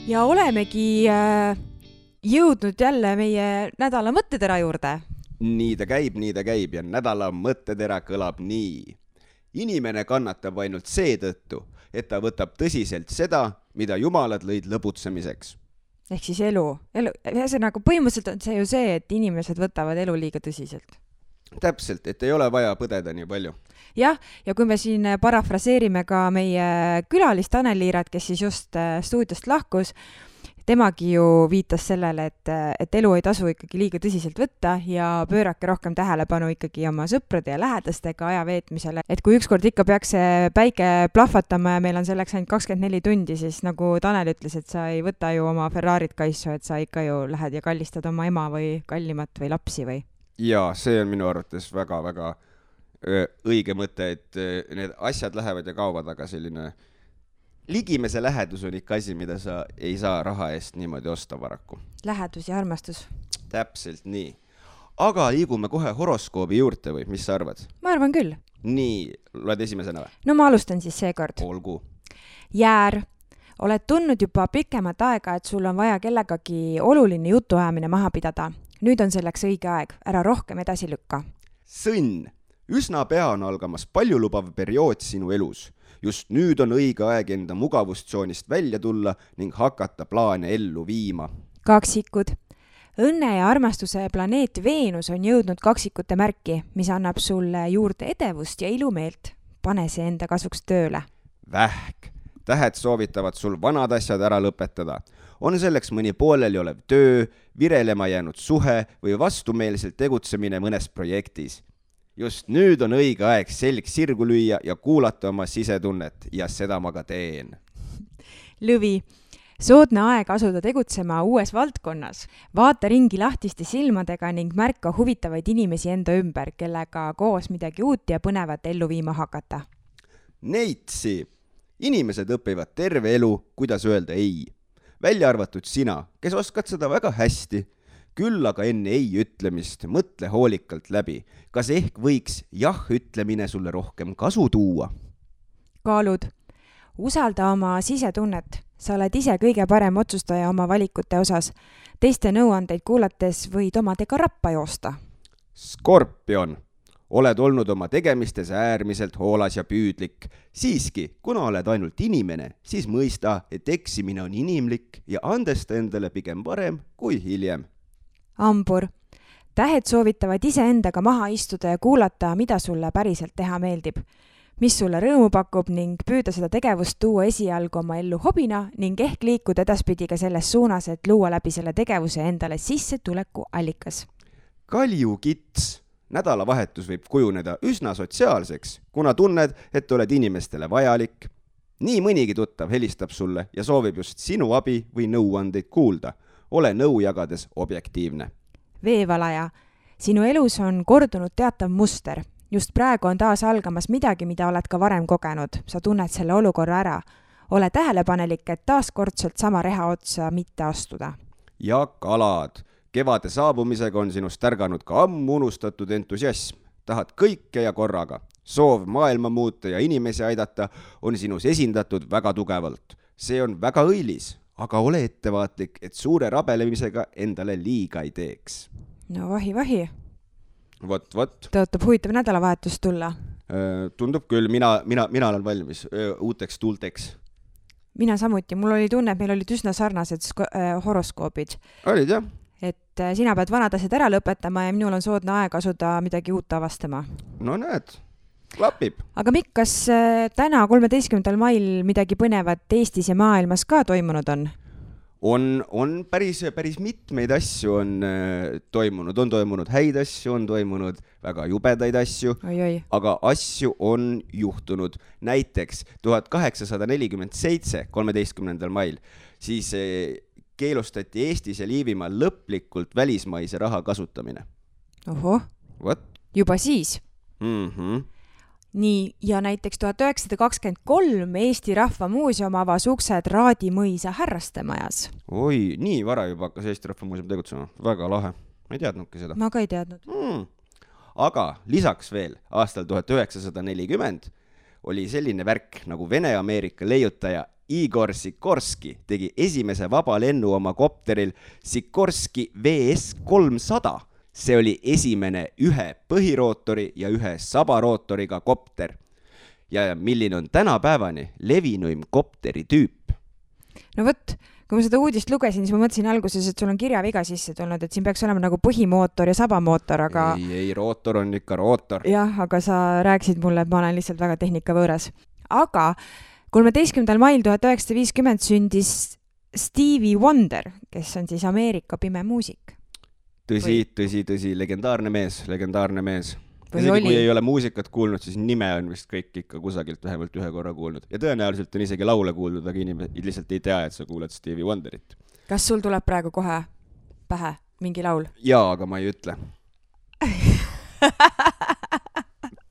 Ja olemegi jõudnud jälle meie nädala mõttetera juurde. Nii ta käib ja nädala mõttetera kõlab nii. Inimene kannatab ainult seetõttu, et ta võtab tõsiselt seda, mida jumalad lõid lõbutsemiseks. Ehk siis elu. Ühesõnaga, põhimõtteliselt on see ju see, et inimesed võtavad elu liiga tõsiselt. Täpselt, et ei ole vaja põdeda nii palju. Jah, ja kui me siin parafraseerime ka meie külalist Tanel Liirat, kes siis just stuudiost lahkus, temagi ju viitas sellele, et elu ei tasu ikkagi liiga tõsiselt võtta ja pöörake rohkem tähelepanu ikkagi oma sõprade ja lähedastega aja veetmisele. Et kui ükskord ikka peaks see päike plahvatama ja meil on selleks ainult 24 tundi, siis nagu Tanel ütles, et sa ei võta ju oma Ferrarit kaisu, et sa ikka ju lähed ja kallistad oma ema või kallimat või lapsi või? Jaa, see on minu arvates väga õige mõte, et need asjad lähevad ja kaovad, aga selline ligimese lähedus on ikka asi, mida sa ei saa raha eest niimoodi osta paraku. Lähedus ja armastus. Täpselt nii. Aga liigume kohe horoskoobi juurde või, mis sa arvad? Ma arvan küll. Nii, loed esimesena või? No ma alustan siis seekord. Olgu. Jäär. Oled tundnud juba pikemat aega, et sul on vaja kellegagi oluline jutuajamine maha pidada. Nüüd on selleks õige aeg, ära rohkem edasi lükka. Sõnn, üsna pea on algamas paljulubav periood sinu elus. Just nüüd on õige aeg enda mugavustsoonist välja tulla ning hakata plaane ellu viima. Kaksikud. Õnne ja armastuse planeet Veenus on jõudnud kaksikute märki, mis annab sulle juurde edevust ja ilumeelt. Pane see enda kasuks tööle. Vähk. Tähed soovitavad sul vanad asjad ära lõpetada. On selleks mõni pooleli olev töö, virelema jäänud suhe või vastumeelselt tegutsemine mõnes projektis. Just nüüd on õige aeg selg sirgu lüüa ja kuulata oma sisetunnet ja seda ma ka teen. Lõvi. Soodne aeg asuda tegutsema uues valdkonnas. Vaata ringi lahtiste silmadega ning märka huvitavaid inimesi enda ümber, kellega koos midagi uut ja põnevat ellu viima hakata. Neitsi. Inimesed õpivad terve elu, kuidas öelda ei. Välja arvatud sina, kes oskad seda väga hästi. Küll aga enne ei ütlemist mõtle hoolikalt läbi. Kas ehk võiks jah ütlemine sulle rohkem kasu tuua? Kaalud. Usalda oma sisetunnet. Sa oled ise kõige parem otsustaja oma valikute osas. Teiste nõuandeid kuulates võid omadega rappa joosta. Skorpion. Oled olnud oma tegemistes äärmiselt hoolas ja püüdlik. Siiski, kuna oled ainult inimene, siis mõista, et eksimine on inimlik ja andesta endale pigem varem kui hiljem. Ambur. Tähed soovitavad iseendaga maha istuda ja kuulata, mida sulle päriselt teha meeldib. Mis sulle rõõmu pakub ning püüda seda tegevust tuua esialgu oma ellu hobina ning ehk liikuda edaspidi ka selles suunas, et luua läbi selle tegevuse endale sissetuleku allikas. Kaljukits. Nädalavahetus võib kujuneda üsna sotsiaalseks, kuna tunned, et oled inimestele vajalik. Nii mõnigi tuttav helistab sulle ja soovib just sinu abi või nõuandeid kuulda. Ole nõu jagades objektiivne. Veevalaja. Sinu elus on kordunud teatav muster. Just praegu on taas algamas midagi, mida oled ka varem kogenud. Sa tunned selle olukorra ära. Ole tähelepanelik, et taaskordselt sama reha otsa mitte astuda. Ja kalad. Kevade saabumisega on sinust tärganud ka ammu unustatud entusiasm. Tahad kõike ja korraga. Soov maailma muuta ja inimesi aidata on sinus esindatud väga tugevalt. See on väga õilis. aga ole ettevaatlik, et suure rabelemisega endale liiga ei teeks. No vahi. Vot. Tõotab huvitav nädalavahetus tulla. Tundub küll, mina olen valmis uuteks tuulteks. Mina samuti, mul oli tunne, et meil olid üsna sarnased horoskoobid. Olid jah? Et sina pead vanad asjad ära lõpetama ja minul on soodne aeg asuda midagi uut avastama. No näed, klapib. Aga Mikk, kas täna 13. mail midagi põnevat Eestis ja maailmas ka toimunud on? On päris mitmeid asju on toimunud häid asju, on toimunud väga jubedaid asju, aga asju on juhtunud. Näiteks 1847, 13. mail, siis keelustati Eestis ja Liivimaal lõplikult välismaise raha kasutamine. Oho, juba siis? Nii, ja näiteks 1923 Eesti Rahva Muuseum avas uksed Raadimõisa härrastemajas. Oi, nii vara juba hakkas Eesti Rahva Muuseum tegutsema. Väga lahe. Ma ei teadnudki seda. Ma ka ei teadnud. Aga lisaks veel aastal 1940 oli selline värk nagu Vene-Ameerika leiutaja Igor Sikorski tegi esimese vaba lennu oma kopteril Sikorski VS-300. See oli esimene ühe põhirootori ja ühe sabarootoriga kopter. Ja milline on tänapäevani levinuim kopteri tüüp? No võt, kui ma seda uudist lugesin, siis ma mõtlesin alguses, et sul on kirjaviga sisse tulnud, et siin peaks olema nagu põhimootor ja sabamootor, aga... Ei, rootor on ikka rootor. Jah, aga sa rääkisid mulle, et ma olen lihtsalt väga tehnika võõras. Aga 13. mail 1950 sündis Stevie Wonder, kes on siis Ameerika pime muusik. Tõsi, legendaarne mees. Isegi kui ei ole muusikat kuulnud, siis nime on vist kõik ikka kusagilt vähemalt ühe korra kuulnud. Ja tõenäoliselt on isegi laule kuulnud, aga inimesed lihtsalt ei tea, et sa kuuled Stevie Wonderit. Kas sul tuleb praegu kohe pähe mingi laul? Jaa, aga ma ei ütle.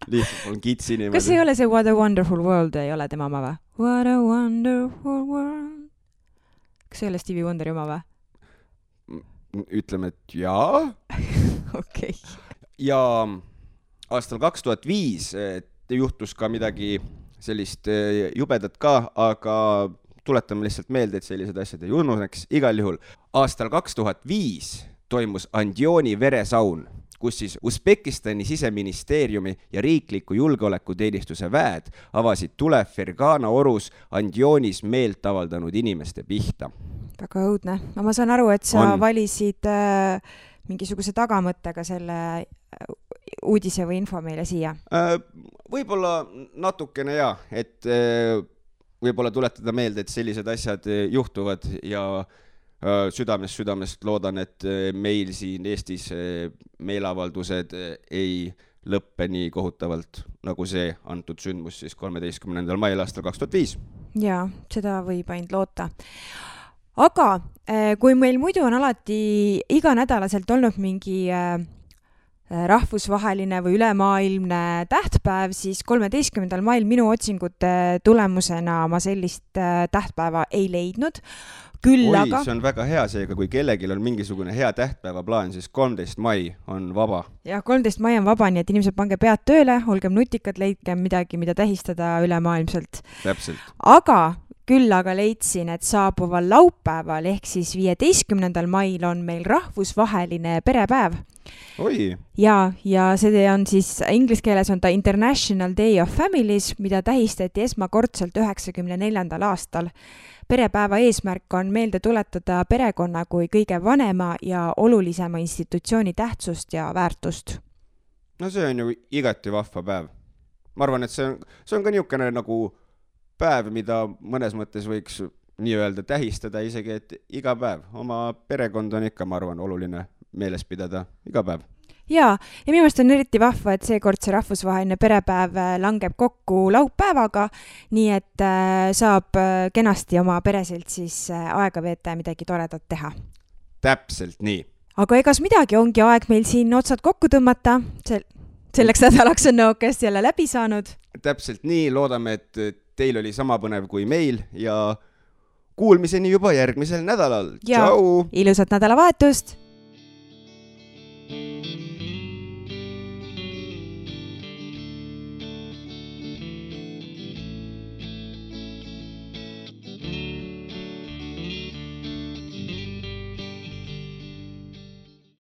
Lihtsalt on kitsi niimoodi. Kas ei ole see What a Wonderful World ei ole tema oma või? What a Wonderful World. Kas ei ole Stevie Wonderi oma või? Ütleme, et jaa. Okei. Ja aastal 2005 juhtus ka midagi sellist jubedat ka, aga tuletame lihtsalt meelde, et sellised asjad ei ununeks. Igal juhul aastal 2005 toimus Andioni veresaun, kus siis Usbekistani siseministeeriumi ja riikliku julgeolekuteenistuse väed avasid tule Fergana orus Andionis meelt avaldanud inimeste pihta. Väga õudne. No ma saan aru, et sa valisid mingisuguse tagamõttega selle uudise või info meile siia. Võib-olla natukene et võib-olla tuletada meelde, et sellised asjad juhtuvad ja südamest loodan, et meil siin Eestis meelavaldused ei lõppe nii kohutavalt, nagu see antud sündmus siis 13. mail aastal 2005. Jaa, seda võib ainult loota. Aga kui meil muidu on alati iganädalaselt olnud mingi rahvusvaheline või ülemaailmne tähtpäev, siis 13. mail minu otsingute tulemusena ma sellist tähtpäeva ei leidnud. Aga... see on väga hea seega, kui kellegil on mingisugune hea tähtpäeva plaan, siis 13. mai on vaba. Ja 13. mai on vaba, nii et inimesed pange pead tööle, olgem nutikad, leidkem midagi, mida tähistada ülemaailmselt. Täpselt. Aga leidsin, et saabuval laupäeval ehk siis 15. mail on meil rahvusvaheline perepäev. Oi. Ja see on siis, inglise keeles on ta International Day of Families, mida tähistati esmakordselt 94. aastal. Perepäeva eesmärk on meelde tuletada perekonna kui kõige vanema ja olulisema institutsiooni tähtsust ja väärtust. No see on ju igati vahva päev. Ma arvan, et see on ka niisugune nagu päev, mida mõnes mõttes võiks nii öelda tähistada isegi, et iga päev. Oma perekond on ikka, ma arvan, oluline meeles pidada iga päev. Ja minu meelest on eriti vahva, et seekord see rahvusvaheline perepäev langeb kokku laupäevaga, nii et saab kenasti oma pereselt siis aega veeta ja midagi toredat teha. Täpselt nii. Aga egas midagi, ongi aeg meil siin otsad kokku tõmmata. Selleks nädalaks on nõukest jälle läbi saanud. Täpselt nii, loodame, et teil oli sama põnev kui meil ja kuulmiseni juba järgmisel nädalal. Ja Tšau! Ilusat nädalavahetust!